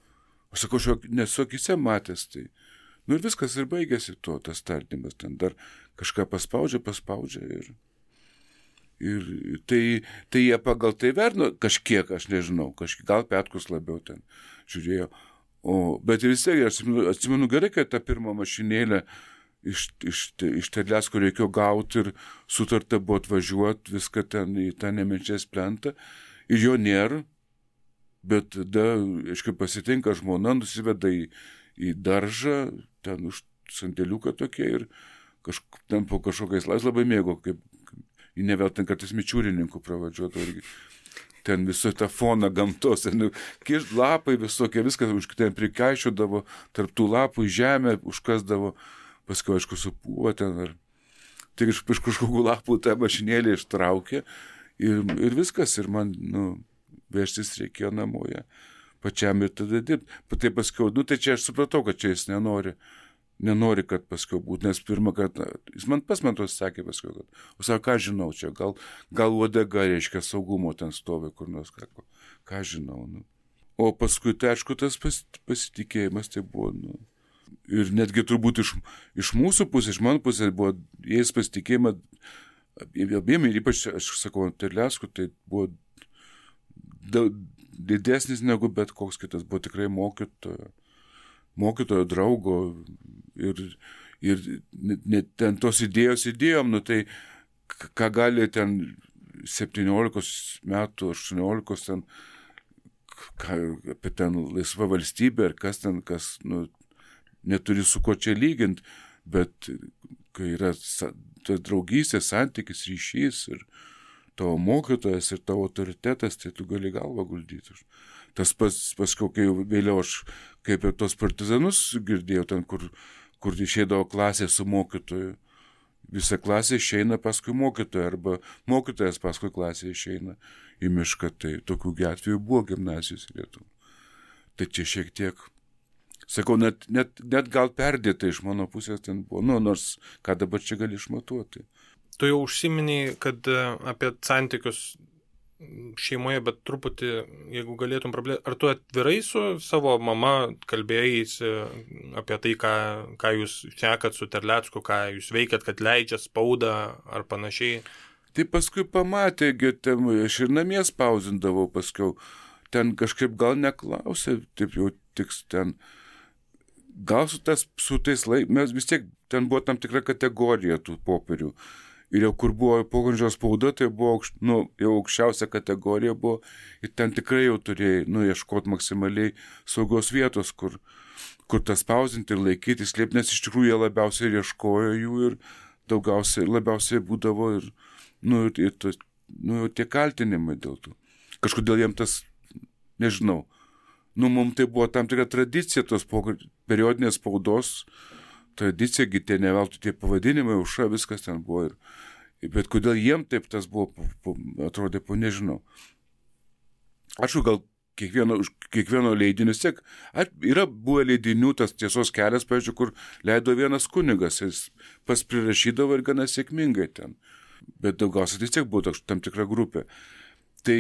Aš sakau, aš nesu akyse matęs. Tai. Nu ir viskas ir baigėsi tas tardymas, ten dar kažką paspaudžia ir tai jie pagal tai vertino kažkiek, aš nežinau, gal Petkus labiau ten žiūrėjo. Bet vis tiek, aš atsimenu gerai, kad tą pirmą mašinėlę iš Terlecko reikėjo gauti ir sutarta buvo atvažiuoti viską ten į tą Nemenčės plentą ir jo nėra, bet tada, aiškiai, pasitinka žmona, nusiveda į daržą, ten už sandėliuką tokie ir ten po kažkokiais labai mėgo, kaip į nevėl ten kartais mičiūrininkų pravadžiuotų irgi. Ten visą tą foną gamtos, ten lapai visokie, viskas ten prikaišiodavo, tarp tų lapų į žemę užkasdavo, paskui, aišku, supūva ten, tik iš kažkokių lapų tą mašinėlį ištraukė ir viskas, ir man, vežtis reikėjo namoje pačiam ir tada dirbti. Tai paskui, tai čia aš supratau, kad čia jis nenori, kad paskui būtų, nes pirmą kartą, jis man tos sakė paskui, kad, o sako, ką žinau čia, gal uodega, reiškia, saugumo ten stovi kur nors, ką žinau. O paskui, tai aišku, tas pasitikėjimas tai buvo, ir netgi turbūt iš mūsų pusės, iš mano pusės buvo, jais pasitikėjimą, abiem ir ypač, aš sakau, Terlecku, tai buvo didesnis negu bet koks kitas, buvo tikrai mokytojo draugo ir net ten tos idėjom, tai ką gali ten 17 metų, 18 ten, apie ten laisvą valstybę ir kas neturi su ko čia lyginti, bet kai yra tas draugystės, santykis, ryšys ir tavo mokytojas ir tavo autoritetas, tai tu gali galvą guldyti. Tas paskui, kai vėliau aš kaip ir tos partizanus girdėjau, ten, kur išeidavo klasė su mokytoju. Visa klasė išeina paskui mokytoją, arba mokytojas paskui klasė išeina į mišką. Tai tokių atvejų buvo gimnazijos Lietuvos. Tai čia šiek tiek, sakau, net gal perdėta iš mano pusės ten buvo, nors ką dabar čia gali išmatuoti. Tu jau užsiminiai, kad apie santykius šeimoje, bet truputį, jeigu galėtum praplėsti, ar tu atvirai su savo mama kalbėjai apie tai, ką jūs šnekat su Terlecku, ką jūs veikiat, kad leidžia spaudą ar panašiai? Tai paskui pamatė, aš ir namie spausindavau paskiau, ten kažkaip gal neklausė, taip jau tiks ten, gal su tais mes vis tiek, ten buvo tam tikra kategorija tų popierių. Ir jau kur buvo pogrindžio spauda, tai buvo jau aukščiausia kategorija buvo ir ten tikrai jau turėjai ieškoti maksimaliai saugos vietos, kur tas spausinti ir laikyti, slėpti, nes iš tikrųjų jie labiausiai ieškojo jų ir labiausiai būdavo ir tie kaltinimai dėl to. Kažkodėl jiem tas, nežinau, mums tai buvo tam tikra tradicija tos periodinės spaudos, tradicija, tie neveltui tie pavadinimai, Aušra, viskas ten buvo. Bet kodėl jiem taip tas buvo, atrodė, nežinau. Ačiū, gal kiekvieno leidinio tiek. Yra buvę leidinių, tas Tiesos kelias, pavyzdžiui, kur leido vienas kunigas, jis pas prirašydavo ir gana sėkmingai ten. Bet daugiausiai vis tiek buvo tam tikra grupė. Tai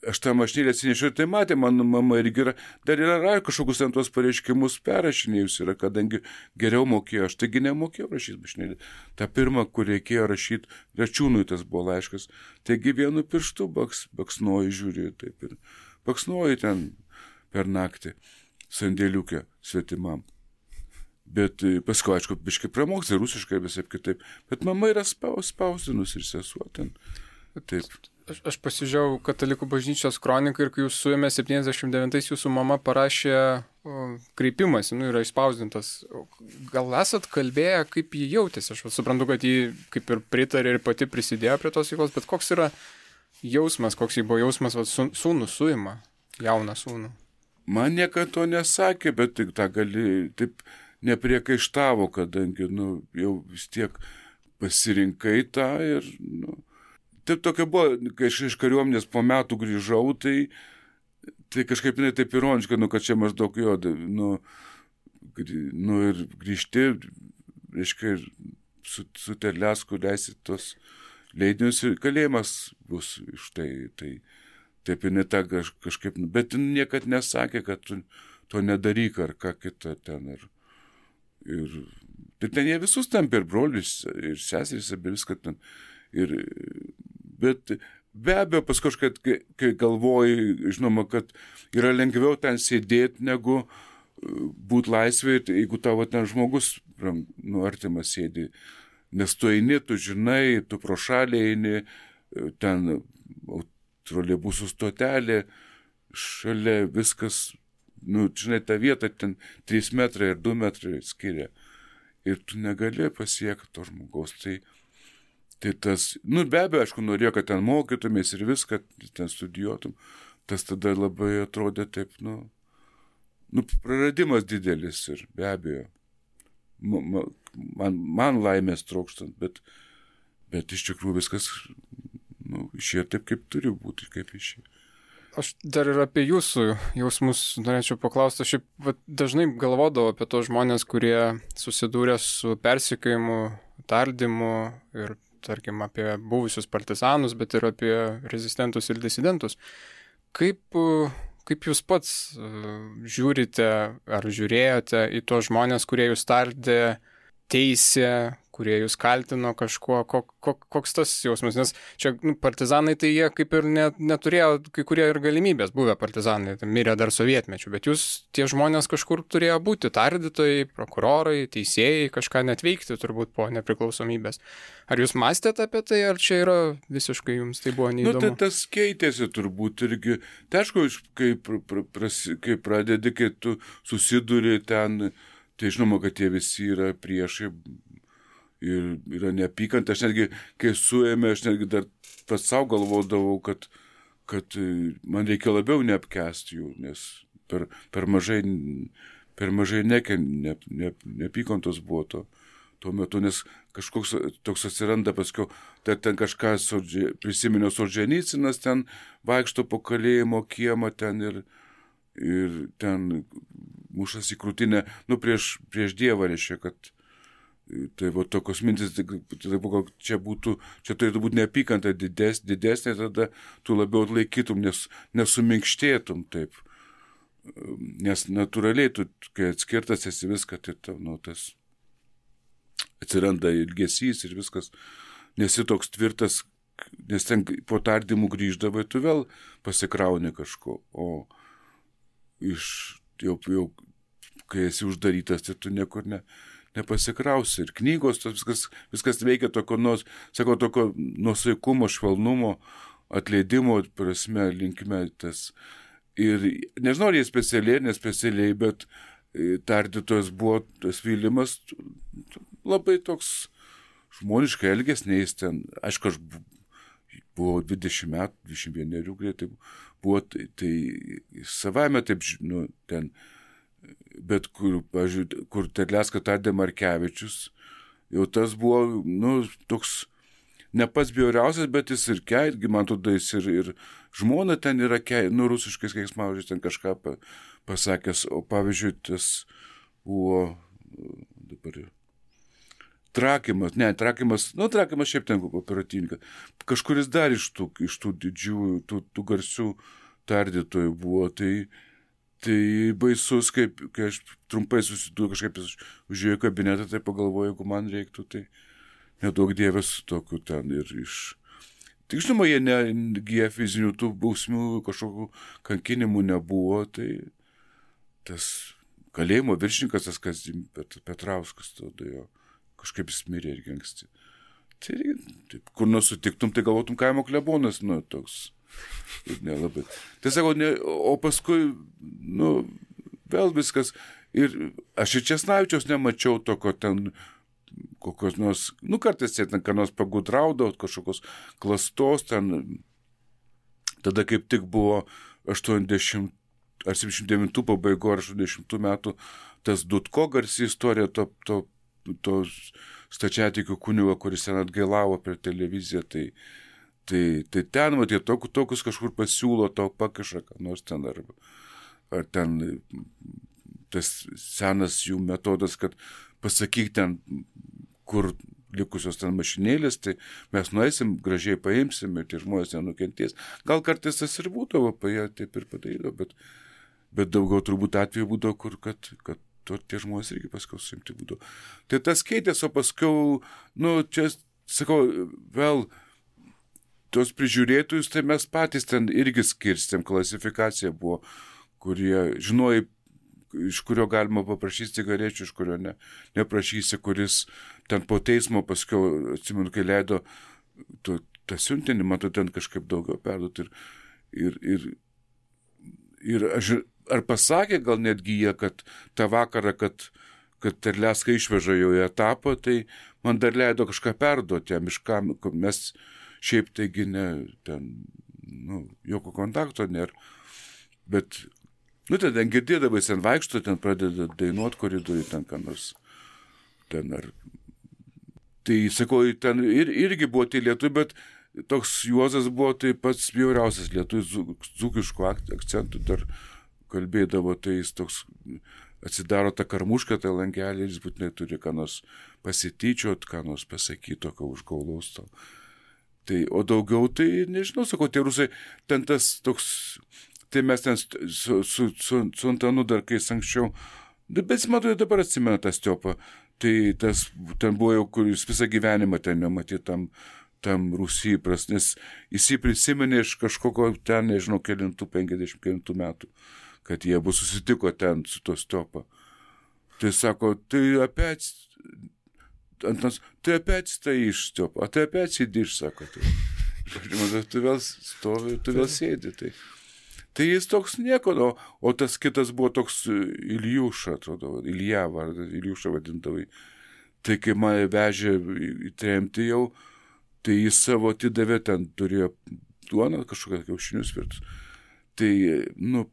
aš tą mašinėlę atsinešiau ir tai matė, mano mama irgi dar yra kažkokius ten tuos pareiškimus perrašinėjus yra, kadangi geriau mokėjo, aš taigi nemokėjau rašyti mašinėlę. Ta pirma, kur reikėjo rašyti, Račiūnui tas buvo laiškas, taigi vienu pirštu baksnoji žiūri, taip ir baksnoji ten per naktį sandėliukę svetimam. Bet paskui, aišku, biškai pramokti rusiškai visai kitaip, bet mama yra spausdinus ir sesuo ten, taip. Aš pasižiūrėjau Katalikų bažnyčios kroniką ir kai jūs suėmė 79-ais, jūsų mama parašė kreipimąsi, yra išspausdintas. Gal esat kalbėję, kaip jį jautėsi? Aš suprantu, kad jį kaip ir pritarė ir pati prisidėjo prie tos veiklos, bet koks yra jausmas, koks jį buvo jausmas, sūnų suima, jauną sūnų? Man niekada to nesakė, bet tik tą gali, taip nepriekaištavo, kadangi, jau vis tiek pasirinkai tą ir, taip tokia buvo, kai aš iš kariuomenės po metų grįžau, tai kažkaip taip ironiška, kad čia maždaug jo, ir grįžti, reiškia, su Terlecku leisi tos leidinius ir kalėjimas bus iš tai taip ir ne tą kažkaip, bet niekad nesakė, kad tu to nedaryk ar ką kitą ten ir ten jie visus tampė ir brolius, ir seserys, ir viską ten. Bet be abejo, paskui kažkaip, kai galvoji, žinoma, kad yra lengviau ten sėdėti, negu būti laisvėje, jeigu tavo ten žmogus, artimas sėdi. Nes tu eini, tu žinai, tu pro šalį eini, ten troleibusų stotelė, šalia viskas, žinai, ta vieta ten 3 metrai ir 2 metrai skiria. Ir tu negali pasiekti to žmogaus. Tai tas, be abejo, aišku, norėjo, kad ten mokytumės ir viską, ten studijuotum. Tas tada labai atrodė taip, praradimas didelis ir be abejo. Man laimės trokštant, bet iš tikrųjų viskas išėjo taip, kaip turi būti, kaip išėjo. Aš dar ir apie jūsų jausmus norėčiau paklausti. Aš dažnai galvodavau apie tos žmonės, kurie susidūrė su persekiojimu, tardymu ir, tarkim, apie buvusius partizanus, bet ir apie rezistentus ir disidentus. Kaip jūs pats žiūrite ar žiūrėjote į tos žmonės, kurie jūs tardė, teisė, kurie jūs kaltino kažkuo, koks tas jausmas? Nes čia partizanai, tai jie kaip ir neturėjo kai kurie ir galimybės, buvę partizanai, mirė dar sovietmečių, bet jūs, tie žmonės kažkur turėjo būti tardytojai, prokurorai, teisėjai, kažką net veikti turbūt po nepriklausomybės. Ar jūs mąstėte apie tai, ar čia yra visiškai jums tai buvo neįdomu? Tas keitėsi turbūt irgi. Tai aišku, kai pradedi, kai tu susiduri ten, tai žinoma, kad jie visi yra priešai, ir yra neapykanta. Aš netgi, kai suėmė, aš netgi dar pats savo galvodavau, kad man reikia labiau neapkęsti jų, nes per mažai neapykantos buvo tuo metu, nes kažkoks toks atsiranda paskiau, ten kažką prisiminiau Solženicinas, ten vaikšto po kalėjimo kiemą ten ir ten mušas į krūtinę, prieš Dievą, reiškia, kad tai va tokios mintis, čia turėtų būti neapykanta didesnė, tada tu labiau atlaikytum, nesuminkštėtum taip. Nes natūraliai, tu, kai atskirtas esi viską, tai tas atsiranda ilgesys ir viskas, nesi toks tvirtas, nes ten po tardymų grįždavai, tu vėl pasikrauni kažko, o jau kai esi uždarytas, tai tu niekur nepasikrausi. Ir knygos, viskas veikia tokio nuosaikumo, švelnumo, atleidimo prasme, linkme tas. Ir nežinau, ar jie specialiai, nespecialiai, bet tardytojas buvo tas Vilimas labai toks žmoniškai elgesniais ten. Aišku, aš buvau 20 metų, 21 greitai buvo, tai savame taip, ten. Bet kur Terlecką tardė Markevičius, jau tas buvo, toks ne pats bjauriausias, bet jis irgi, man tada jis ir žmona ten yra, rusiškais keiksmažodžiais ten kažką pasakęs, o pavyzdžiui, tas buvo dabar Trakimas šiaip ten operatyvininkas, kažkuris dar iš tų didžiųjų, tų garsių tardytojų buvo, tai baisus, kai aš trumpai susidūriau, kažkaip užėjau į kabinetą, tai pagalvojau, jeigu man reiktų, tai nedaug dievės tokių ten ir Tik žinoma, jie negiję fizinių tų bausmių, kažkokių kankinimų nebuvo, tai tas kalėjimo viršininkas, tas Petrauskas, tada jo kažkaip jis mirė irgi anksti. Tai taip, kur nors sutiktum, tai galvotum kaimo klebonas, nu, toks. Ir nelabai. Tai sakau, o paskui, nu, vėl viskas. Ir aš ir Česnavičiaus nemačiau tokio ten, kokios nors, nu, kartais ten, ką nors pagudraudavo, kažkokios klastos ten. Tada kaip tik buvo 80 ar 79 pabaigo ar 80 metų tas Dudko garsi istorija to stačiatikių kunigo, kuris ten atgailavo per televiziją, tai ten, matai, tokius kažkur pasiūlo, tau pakiša, ką nors ten, ar ten tas senas jų metodas, kad pasakyk ten, kur likusios ten mašinėlės, tai mes nueisim, gražiai paimsim ir tie žmonės nenukentės. Gal kartais tas ir būdavo, jie taip ir padarydavo, bet daugiau turbūt atveju būdavo, kur kad tie žmonės irgi paskui suimti būdavo. Tai tas keitės, o paskui, nu, čia, sakau, vėl tos prižiūrėtojus, tai mes patys ten irgi skirstėm, klasifikacija buvo, kurie žinojai, iš kurio galima paprašyti cigarečių, iš kurio neprašysi, kuris ten po teismo paskui, atsimenu, kai leido tą siuntinį, matau, ten kažkaip daugiau perduoti. Ir aš, ar pasakė gal netgi jie, kad tą vakarą, kad Terlecką išveža jau į etapą, tai man dar leido kažką perduoti jam, iš kam, mes šiaip taigi ten, nu, jokio kontakto nėra, bet nu, ten girdėdavai, ten vaikšto, ten pradeda dainuoti koridoriui, ten ką nors, ten ar. Tai, sakau, ten irgi buvo tai lietuvių, bet toks Juozas buvo tai pats bjauriausias lietuvių, dzūkiškų akcentų dar kalbėdavo, tai jis toks atsidaro tą karmušką, tą langelį, jis būtinai turi ką nors pasityčiot, ką nors pasakyti, tokio užgaulaus tau. Tai, o daugiau, tai nežinau, sakau, tie rusai, ten tas toks. Tai mes ten su Antanu dar kai anksčiau, bet matau, dabar atsimena tą Stiopą, tai tas ten buvo jau, kur jis visą gyvenimą ten nematė tam Rusijai pras, nes jis jį prisiminė iš kažkokio ten, nežinau, 50 metų, kad jie buvo susitiko ten su to Stiopą. Tai sako, tai опять стоишь, Степа, а ты опять сидишь, sako. Tai, tu vėl stovi, tu vėl sėdi, Tai jis toks nieko, o tas kitas buvo toks Iljuša, atrodo, Ilja vardas, Iljuša vadintavai. Tai kai mane vežė į tremtį jau, tai jis savo atidavė, ten turėjo duoną, kažkokią kiaušinius virtus. Tai, nu,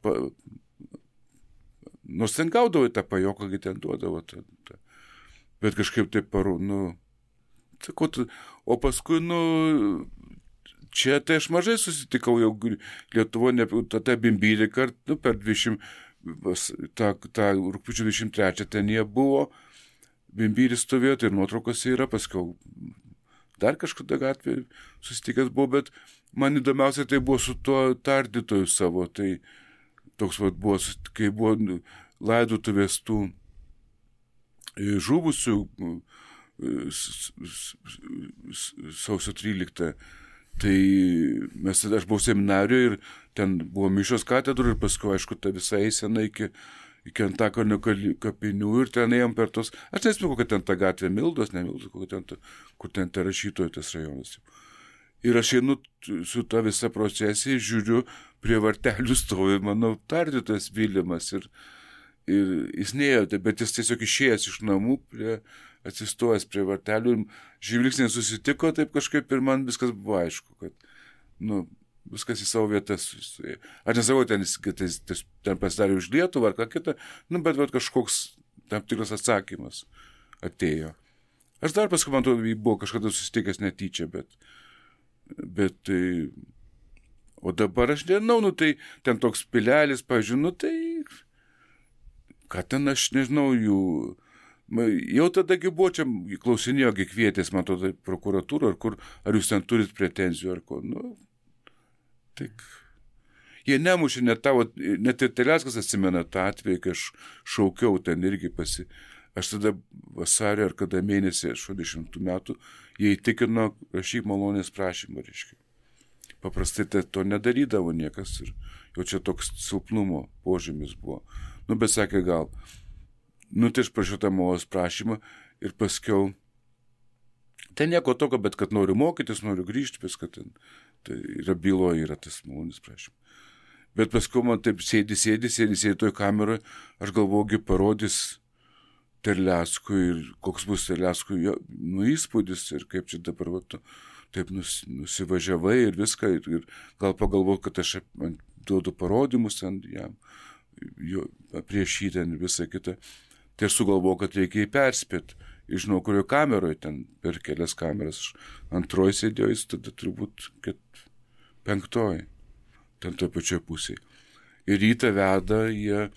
nors ten gaudavo tą pajoką, kai ten duodavo. Bet kažkaip taip sakau, o paskui, čia tai aš mažai susitikau jau Lietuvoje, tada Bimbyrį kartu per 20, tą rugpjūčio 23 ten jie buvo, Bimbyris stovėjo, tai ir nuotraukose yra, paskiau dar kažkada gatvėje susitikęs buvo, bet man įdomiausia tai buvo su tuo tardytoju savo, tai toks buvo, kai buvo laidotuvės tų žuvusių sausio 13. Tai aš buvau seminarijoje ir ten buvo mišios katedrų ir paskui, aišku, ta visa eisena iki Antakalnio kapinių ir ten ėjom per tos, aš nesimenu, kokia ten ta gatvė, Mildos, kur ten ta rašytojų tas rajonas. Ir aš einu su ta visa procesija, žiūriu, prie vartelių stovi, mano tardytojas Vilimas ir jis neėjo, bet jis tiesiog išėjęs iš namų, atsistojęs prie vartelių ir žvilgsniai susitiko, taip kažkaip ir man viskas buvo aišku, kad, viskas į savo vietas. Aš nesakau, ten pasidarė už Lietuvą ar ką kitą, bet kažkoks tam tikras atsakymas atėjo. Aš dar paskui, man atrodo, buvo kažkada susitikęs netyčia, bet tai, o dabar aš nežinau, tai ten toks pilelis, pažiūrėjau, tai, ką ten aš nežinau jų. Jau tadagi buvo čia, klausinėjo, kvietės, man atrodo, prokuratūrą, ar jūs ten turit pretenzijų, ar ko, tik. Jie nemušė, net ir Terleckas atsimena tą atvejį, kai aš šaukiau ten irgi aš tada vasario ar kada mėnesį 60 metų, jie įtikino rašyk malonės prašymą, reiškia. Paprastai to nedarydavo niekas ir jau čia toks silpnumo požymis buvo. Bet sakė gal. Tai aš prašiau tą malonės prašymą ir paskiau Ten nieko tokio, bet kad noriu mokytis, noriu grįžti, viską ten. Tai yra byloje, yra tas malonės prašymas. Bet paskui man taip sėdi toj kameroje, aš galvoju, parodys Terleckui ir koks bus Terleckui įspūdis ir kaip čia dabar taip nusivažiavai ir viską ir gal pagalvoju, kad aš duodu parodymus ten jam, prieš jį ten visą kitą. Tai aš sugalvoju, kad reikia jį perspėti. Žinau, kurio kameroje ten per kelias kameras. Antroji sėdėjo, jis tada turbūt 5. Ten toj pačioj pusėje. Ir rytą veda, jie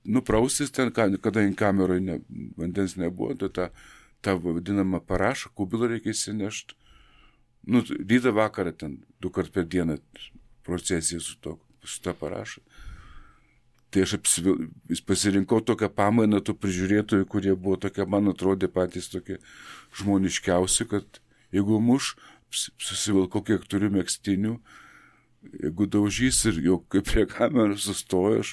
nuprausis ten, kadangi kameroje vandens nebuvo, tai tą vadinamą parašą, kubilą reikia įsinešti. Rytą vakarą ten 2 kart per dieną procesija su tą parašą. Tai aš pasirinkau tokią pamainą tų prižiūrėtojų, kurie buvo tokie, man atrodė patys tokie žmoniškiausi, kad jeigu susivilkau, kiek turiu megztinių, jeigu daužys ir jau kaip prie kameros sustoju, aš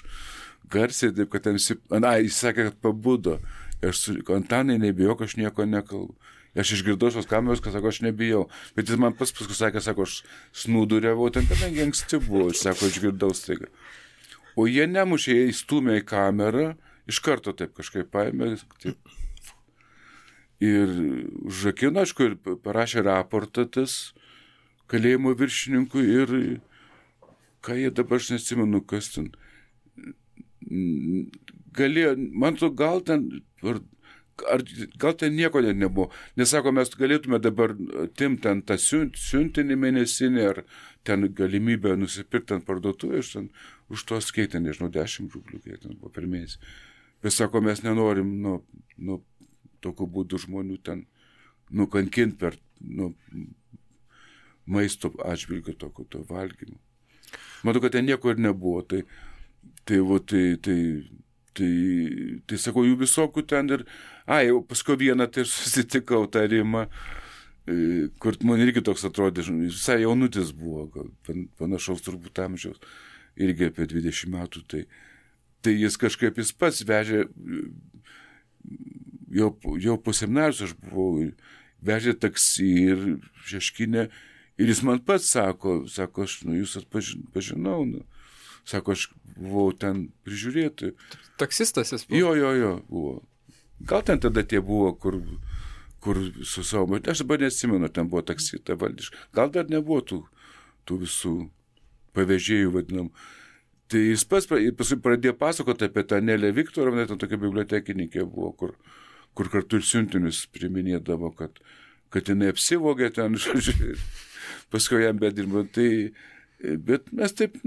garsiai, taip, kad ten jis sakė, kad pabudo. Aš Antanai nebijok, aš nieko nekalbu. Aš išgirdau šios kameros, kad sako, aš nebijau. Bet jis man paskui sakė, sako, aš snūduriavau, ten kadangi anksti buvo, aš sako, išgirdau staiga. O jie nemušė, jie įstumė į kamerą, iš karto taip kažkaip paėmė. Taip. Ir užrakino, aišku, ir parašė raportą tas kalėjimo viršininkui ir ką jie dabar, aš neatsimenu, kas ten. Galėjo, man to gal ten nieko net nebuvo. Nesako, mes galėtume dabar atimti ten tą siuntinį mėnesinį ar ten galimybę nusipirkti ant parduotuvės, už tos keitė, nežinau, 10 rublių, kiek ten buvo per mėnesį. Bet sako, mes nenorim tokiu būdu žmonių ten nukankinti per maisto atžvilgiu to valgymo. Matau, kad ten nieko ir nebuvo. Tai sakau, jų visokių ten ir... jau paskui vieną tai susitikau tą Rimą, kur man irgi toks atrodė, visai jaunutis buvo, panašaus turbūt amžiaus, irgi apie 20 metų. Tai jis kažkaip jis pats vežė, jau po seminarijos aš buvau, vežė taksi ir Šeškinę, ir jis man pats sako, aš jūs atpažinau, sako, aš buvau ten prižiūrėti. Taksistas jis buvo? Jo, buvo. Gal ten tada tie buvo, kur su savo, aš dabar neatsimenu, ten buvo taksi, ta valdiška. Gal dar nebuvo tų visų pavežėjų vadinam. Tai jis paskui pradėjo pasakoti apie tą Nelę Viktorovną, ten tokia bibliotekininkė buvo, kur kartu ir siuntinius priminėdavo, kad jinai apsivogė ten, žodžiu, paskui jam bedirbo. Bet mes taip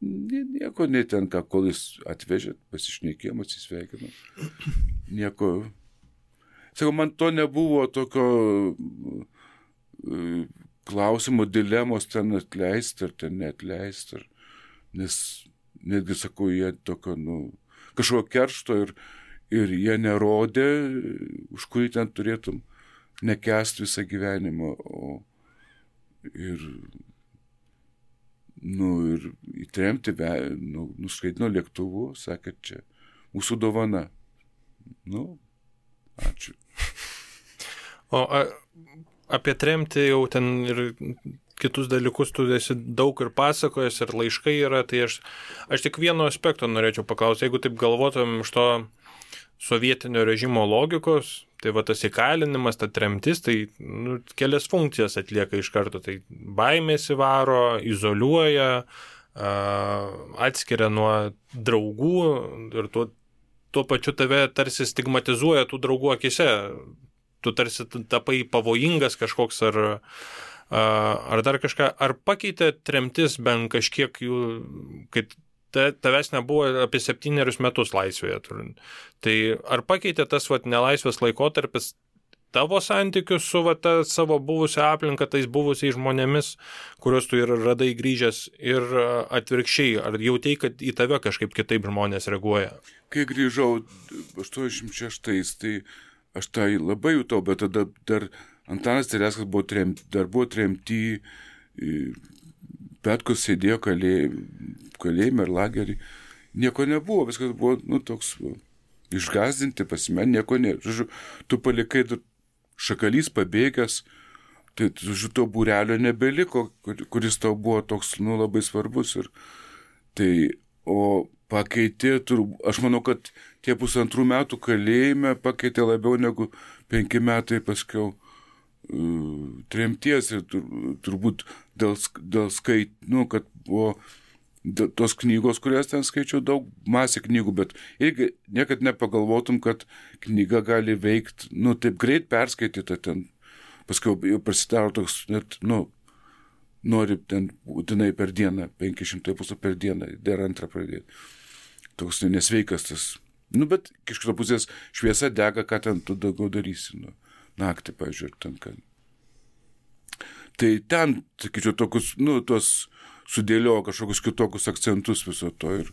nieko ten, kol jis atvežė, pasišnekėjom, atsisveikinom. Nieko. Sakau, man to nebuvo tokio klausimo, dilemos ten atleisti ar ten neatleisti. Nes netgi, sakau, jie tokio, kažkokio keršto ir jie nerodė, už kurį ten turėtum nekęsti visą gyvenimą. Ir įtremti, nuskaitino lėktuvu, sakė, čia mūsų dovana. Ačiū. O apie tremtį jau ten ir kitus dalykus tu esi daug ir pasakojęs, ir laiškai yra, tai aš tik vieno aspekto norėčiau paklausti. Jeigu taip galvotum iš to sovietinio režimo logikos, tai va tas įkalinimas, ta tremtis, tai kelias funkcijas atlieka iš karto. Tai baimės įvaro, izoliuoja, atskiria nuo draugų ir tuo pačiu tave tarsi stigmatizuoja tų draugų akise. Tu tarsi tapai pavojingas kažkoks ar dar kažką. Ar pakeitė tremtis bent kažkiek jų, kad tavęs nebuvo apie 7 metus laisvėje turint. Tai ar pakeitė tas nelaisvės laikotarpis tavo santykius su ta savo buvusią aplinką, tais buvusiais žmonėmis, kuriuos tu ir radai grįžęs, ir atvirkščiai, ar jautei, kad į tave kažkaip kitaip žmonės reaguoja? Kai grįžau 86, tai aš tai labai jutau, bet tada dar Antanas Terleckas buvo tremty, Petkus sėdėjo kalėjime ir lagerį. Nieko nebuvo, viskas buvo toks išgąsdinti, nieko nėra. Žodžiu, tu palikai šakalys pabėgęs, tai to būrelio nebeliko, kuris tau buvo toks, labai svarbus. Ir tai, o pakeitė, aš manau, kad tie 1,5 metų kalėjime pakeitė labiau negu 5 metai paskiau tremties ir turbūt dėl kad buvo tos knygos, kurias ten skaičiau, daug masė knygų, bet irgi niekad nepagalvotum, kad knyga gali veikti, taip greit perskaityta ten, paskui jau prasidaro toks, net, nori ten būtinai per dieną, 500 puslapių per dieną, dar antrą pradėti. Toks nesveikas tas. Bet iš kitos pusės šviesa dega, ką ten tu daugiau darysi, naktį, pavyzdžiui, ten ką. Tai ten, sakyčiau, tokius, tos sudėliojo kažkokius kitokius akcentus viso to ir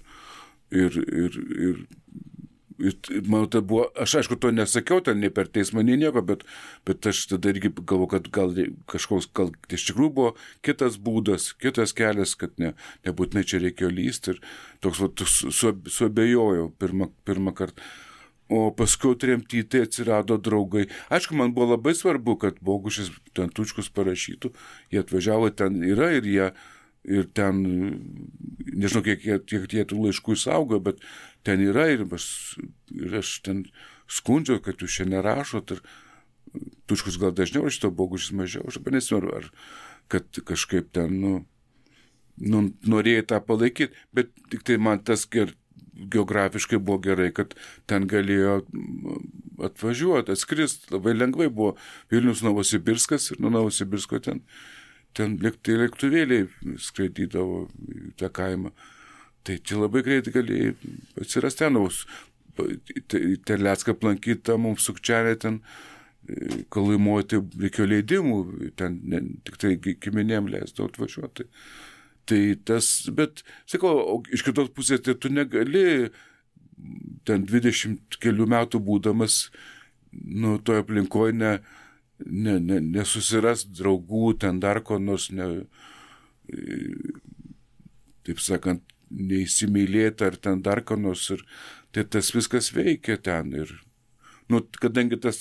manau, tai buvo, aš aišku to nesakiau, ten nei per teismą, nei nieko, bet aš tada irgi galvoju, kad gal iš tikrųjų buvo kitas būdas, kitas kelias, kad nebūtinai čia reikėjo lysti ir toks suabejojau pirmą kartą. O paskui tremty tai atsirado draugai. Aišku, man buvo labai svarbu, kad Bogušis ten Tučkus parašytų, jie atvažiavo, ten yra ir ten, nežinau, kiek jie tų laiškų išsaugo, bet ten yra ir aš ten skundžiau, kad jūs čia nerašot ir Tučkus gal dažniau šito, Bogušis mažiau, aš nesimenu, ar kad kažkaip ten, norėjai tą palaikyti, bet tik tai man tas geografiškai buvo gerai, kad ten galėjo atvažiuoti, atskristi, labai lengvai buvo Vilnius Novosibirskas ir nuo Novosibirsko ten lėktuvėliai skraidydavo į tą kaimą. Tai čia labai greitai galėjai atsirasti ten, Terlecką aplankyti, mums Sukčianė ten Kalaimuoti reikėjo leidimų, ten tik tai giminėm leisdavo atvažiuoti. Tai tas, bet, sakau, iš kitos pusės, tai tu negali ten 20 kelių metų būdamas, toje aplinkoje nesusiras draugų, ten dar ko nors, taip sakant, neįsimylėti ar ten dar ko nors. Ir tai tas viskas veikia ten. Ir, kadangi tas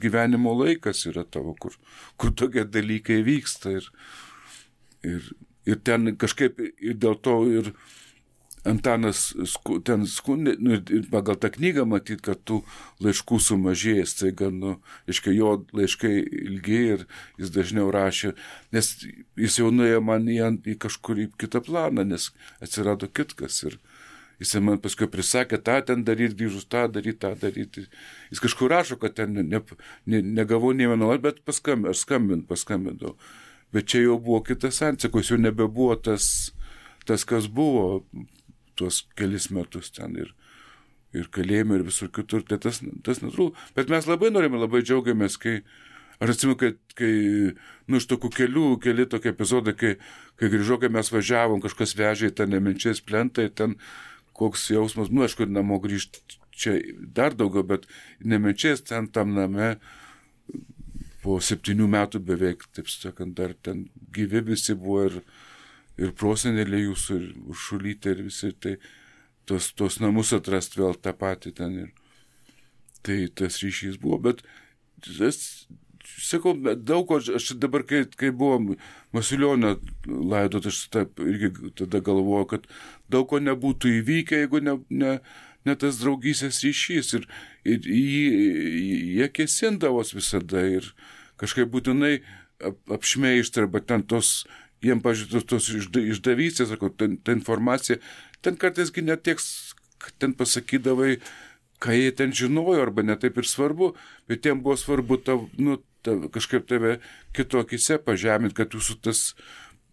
gyvenimo laikas yra tavo, kur tokie dalykai vyksta. Ir ten kažkaip ir dėl to ir Antanas ten skundė, ir pagal tą knygą matyt, kad tų laiškų sumažėjęs, tai jo laiškai ilgiai ir jis dažniau rašė, nes jis jau nuėjo man į kažkurį kitą planą, nes atsirado kitkas ir jis man paskui prisakė, tą ten daryti, grįžus tą daryti. Jis kažkur rašo, kad ten negavau nei vieno, bet aš paskambindavau. Bet čia jau buvo kitas santykis, jau nebebuvo tas, kas buvo tuos kelis metus ten ir kalėjime ir visur kitur, tai tas netrūko. Bet mes labai norime, labai džiaugiamės, aš atsimenu, kai iš tokių keli tokie epizodai, kai grįžo, kai mes važiavom, kažkas vežė į tą Nemenčės plentą, ten koks jausmas, aišku, namo grįžti čia dar daugiau, bet Nemenčės ten tam name po 7 metų beveik, taip sakant, dar ten gyvi visi buvo ir proseneliai jūsų, ir Uršulytė, ir visi, tai tos namus atrast vėl tą patį ten. Tai tas ryšys buvo, bet sakau, daug ko, aš dabar, kai buvo Masiulionio laidot, aš irgi tada galvoju, kad daug ko nebūtų įvykę, jeigu ne tas draugystės ryšys. Ir jie kėsindavos visada ir kažkaip būtinai apšmeižti, arba ten jiem, pažiūrėjau, tos išdavystės, ta informacija, ten kartaisgi netiek, ten pasakydavai, ką jie ten žinojo, arba netaip ir svarbu, bet jiem buvo svarbu kažkaip tave kitokise pažeminti, kad jūsų tas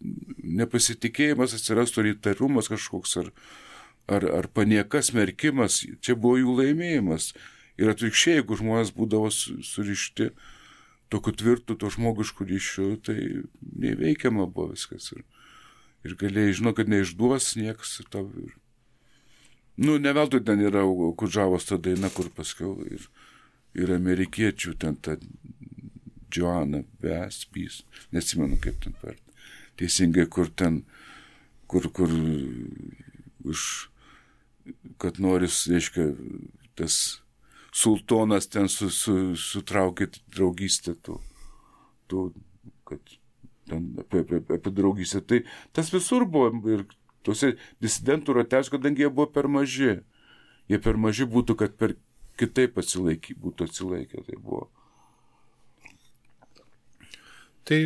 nepasitikėjimas atsirastų, ar įtarumas kažkoks, ar panieka, smerkimas, čia buvo jų laimėjimas. Ir atvirkščiai, jeigu žmonės būdavo surišti tokiu tvirtu, to žmogišku ryšiu, tai neįveikiama buvo viskas. Ir galėjai žinoti, kad neišduos niekas. Ne veltui ten yra Kudžavos ta daina, kur paskiau ir amerikiečių ten ta Joanna Vespys, neatsimenu kaip ten per teisingai, kur kad noris, reiškia, tas sultonas ten sutraukė draugystę kad ten apie draugystę. Tai tas visur buvo ir tuose disidentų rateliuose, kadangi jie buvo per maži. Jie per maži būtų, kad per kitaip būtų atsilaikę. Tai buvo. Tai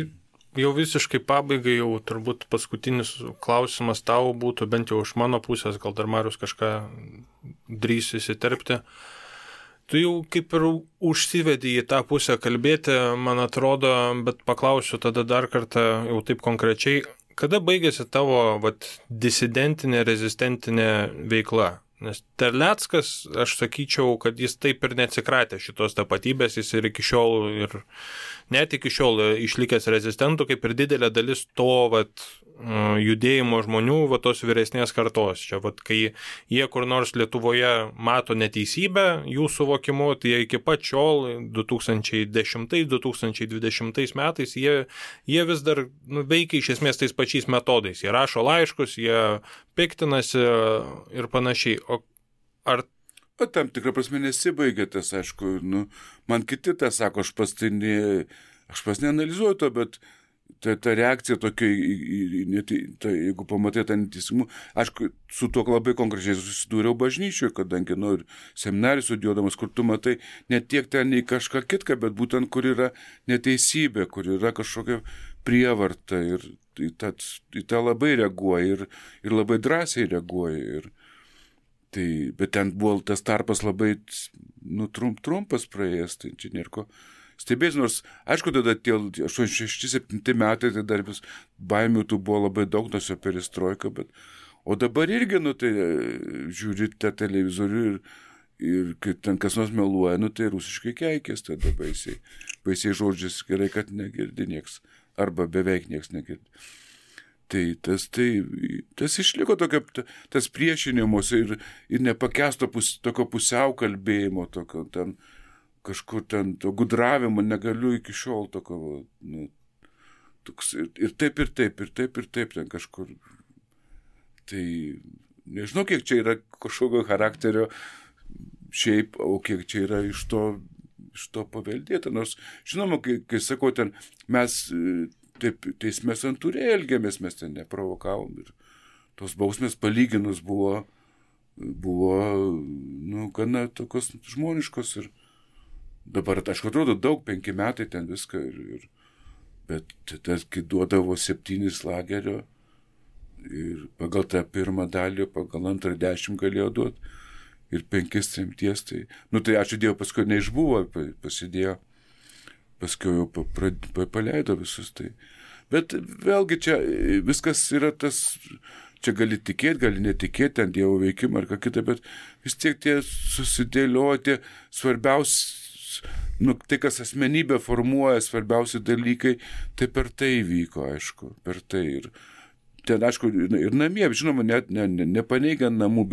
jau visiškai pabaigai, jau turbūt paskutinis klausimas tau būtų, bent jau iš mano pusės, gal dar Marius kažką drįs įsiterpti. Tu jau kaip ir užsivedį į tą pusę kalbėti, man atrodo, bet paklausiu tada dar kartą jau taip konkrečiai, kada baigėsi tavo disidentinė, rezistentinė veikla? Nes Terleckas, aš sakyčiau, kad jis taip ir neatsikratė šitos tapatybės, jis ir iki šiol, ir net iki šiol išlikęs rezistentų, kaip ir didelė dalis to judėjimo žmonių, tos vyresnės kartos. Čia, kai jie kur nors Lietuvoje mato neteisybę, jų suvokimu, tai jie iki pat šiol, 2010-2020 metais, jie vis dar veikia iš esmės tais pačiais metodais. Jie rašo laiškus, jie piktinasi ir panašiai. O ar tam tikrą prasme nesibaigė tas, aišku, man kiti tą sako, aš pats neanalizuoju to, bet ta reakcija tokia, jeigu pamatai tą neteisingumą, aišku, su tuo labai konkrečiai susidūriau bažnyčioje, kadangi, ir seminarijų studijuodamas, kur tu matai ne tiek ten į kažką kitką, bet būtent kur yra neteisybė, kur yra kažkokia prievarta ir į tą labai reaguoja ir labai drąsiai reaguoja. Bet ten buvo tas tarpas labai trumpas praėjęs, tai čia nėra ko stebės, nors, aišku, tada tie 86-7 metai, tai dar vis baimių tų buvo labai daug, nors jo perestroika, o dabar irgi, tai žiūri tą televizorių ir kai ten kas nors meluoja, tai rusiškai keikės, tada baisiai žodžiais, gerai, kad negirdi nieks, arba beveik nieks negirdi. Tai tas išliko tokio, tas priešinimus ir nepakesto tokio pusiau kalbėjimo, tokio ten, kažkur ten to gudravimo negaliu iki šiol tokio, toks, ir taip ten kažkur. Tai nežinau, kiek čia yra kažkokio charakterio šiaip, o kiek čia yra iš to paveldėta. Nors, žinoma, kai sakau, ten mes taip teisme santūriai elgėmės, mes ten neprovokavom ir tos bausmės palyginus buvo gana tokios žmoniškos ir dabar, aišku, atrodo daug, 5 metai ten viską, bet tas, kai duodavo 7 lagerio ir pagal tą pirmą dalį, pagal antrą 10 galėjo duoti ir 5 tremties, tai ačiū Dievui, paskui neišbuvo, pasidėjo, paskui jau paleido visus tai. Bet vėlgi čia viskas yra tas, čia gali tikėti, gali netikėti, ten Dievo veikimą ar ką kitą, bet vis tiek tie susidėlioti svarbiausi, tai kas asmenybę formuoja, svarbiausi dalykai, tai per tai vyko, aišku, per tai. Ir ten, aišku, ir namie, žinoma, net nepaneigiant namų,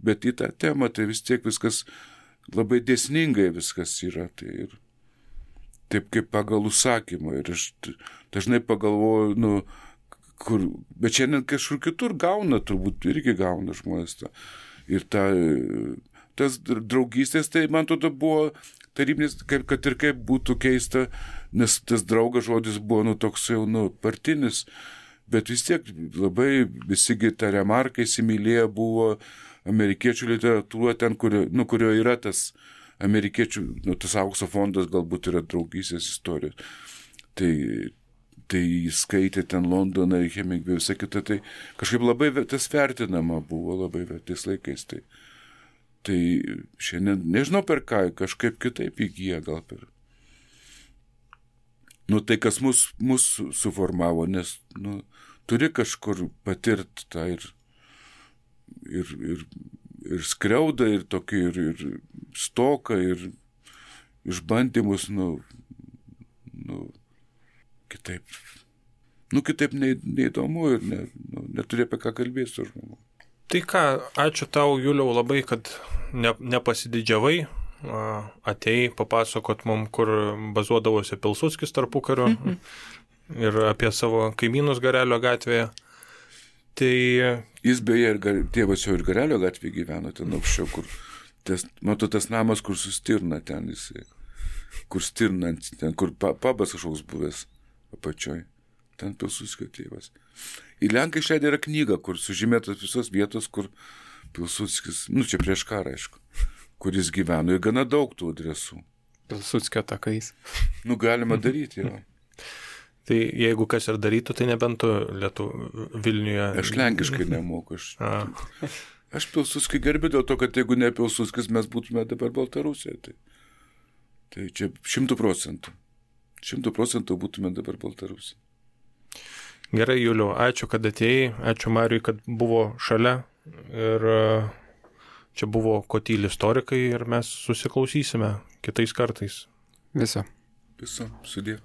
bet į tą temą, tai vis tiek viskas labai dėsningai viskas yra. Tai ir taip kaip pagal užsakymą. Ir aš dažnai pagalvoju, bet šiandien kažkur kitur turbūt irgi gauna žmonės tą. Ir tas draugystės, tai man tada buvo tarybinis, kad ir kaip būtų keista, nes tas draugas žodis buvo toks jau partinis, bet vis tiek labai visigi tą remarką įsimylėję buvo amerikiečių literatūra ten, kurio yra tas amerikiečių, tas aukso fondas galbūt yra draugystės istorijos. Tai jis skaitė ten Londoną ir Hemingway, visą kitą, tai kažkaip labai tas vertinama buvo labai tais laikais. Tai šiandien, nežinau per ką, kažkaip kitaip įgyja gal per. Tai kas mus suformavo, nes turi kažkur patirti tą ir skriaudą, ir tokį, ir stoką, ir išbandymus, kitaip. Kitaip neįdomu ir neturi apie ką kalbėti su žmogu. Tai ką, ačiū tau, Juliau, labai, kad nepasididžiavai, atėjai papasakot mum, kur bazuodavosi Pilsudskis tarpukariu ir apie savo kaimynus Garelio gatvėje. Tai jis beje, tėvas jau ir Garelio gatvėje gyveno, ten aukščiau, kur tas namas, kur sustirna ten jisai. Kur stirnant, ten, kur pabas kažkoks buvęs apačioj. Ten Pilsudskio tėvas. Ir Lenkai išleidę yra knyga, kur sužymėtos visos vietos, kur Pilsudskis, čia prieš karą, aišku, kuris gyveno. Ir gana daug tų adresų. Pilsudskio takais. Galima daryti, jo. Tai jeigu kas ir darytų, tai nebent tu Vilniuje. Aš lenkiškai nemoku. Aš Pilsudskį gerbiu dėl to, kad jeigu ne Pilsudskis, mes būtume dabar Baltarusijoje. Tai čia 100%. 100% būtume dabar Baltarusijoje. Gerai, Juliau, ačiū, kad atėjai. Ačiū Mariui, kad buvo šalia. Ir čia buvo Ko tyli istorikai ir mes susiklausysime kitais kartais. Viso. Sudie.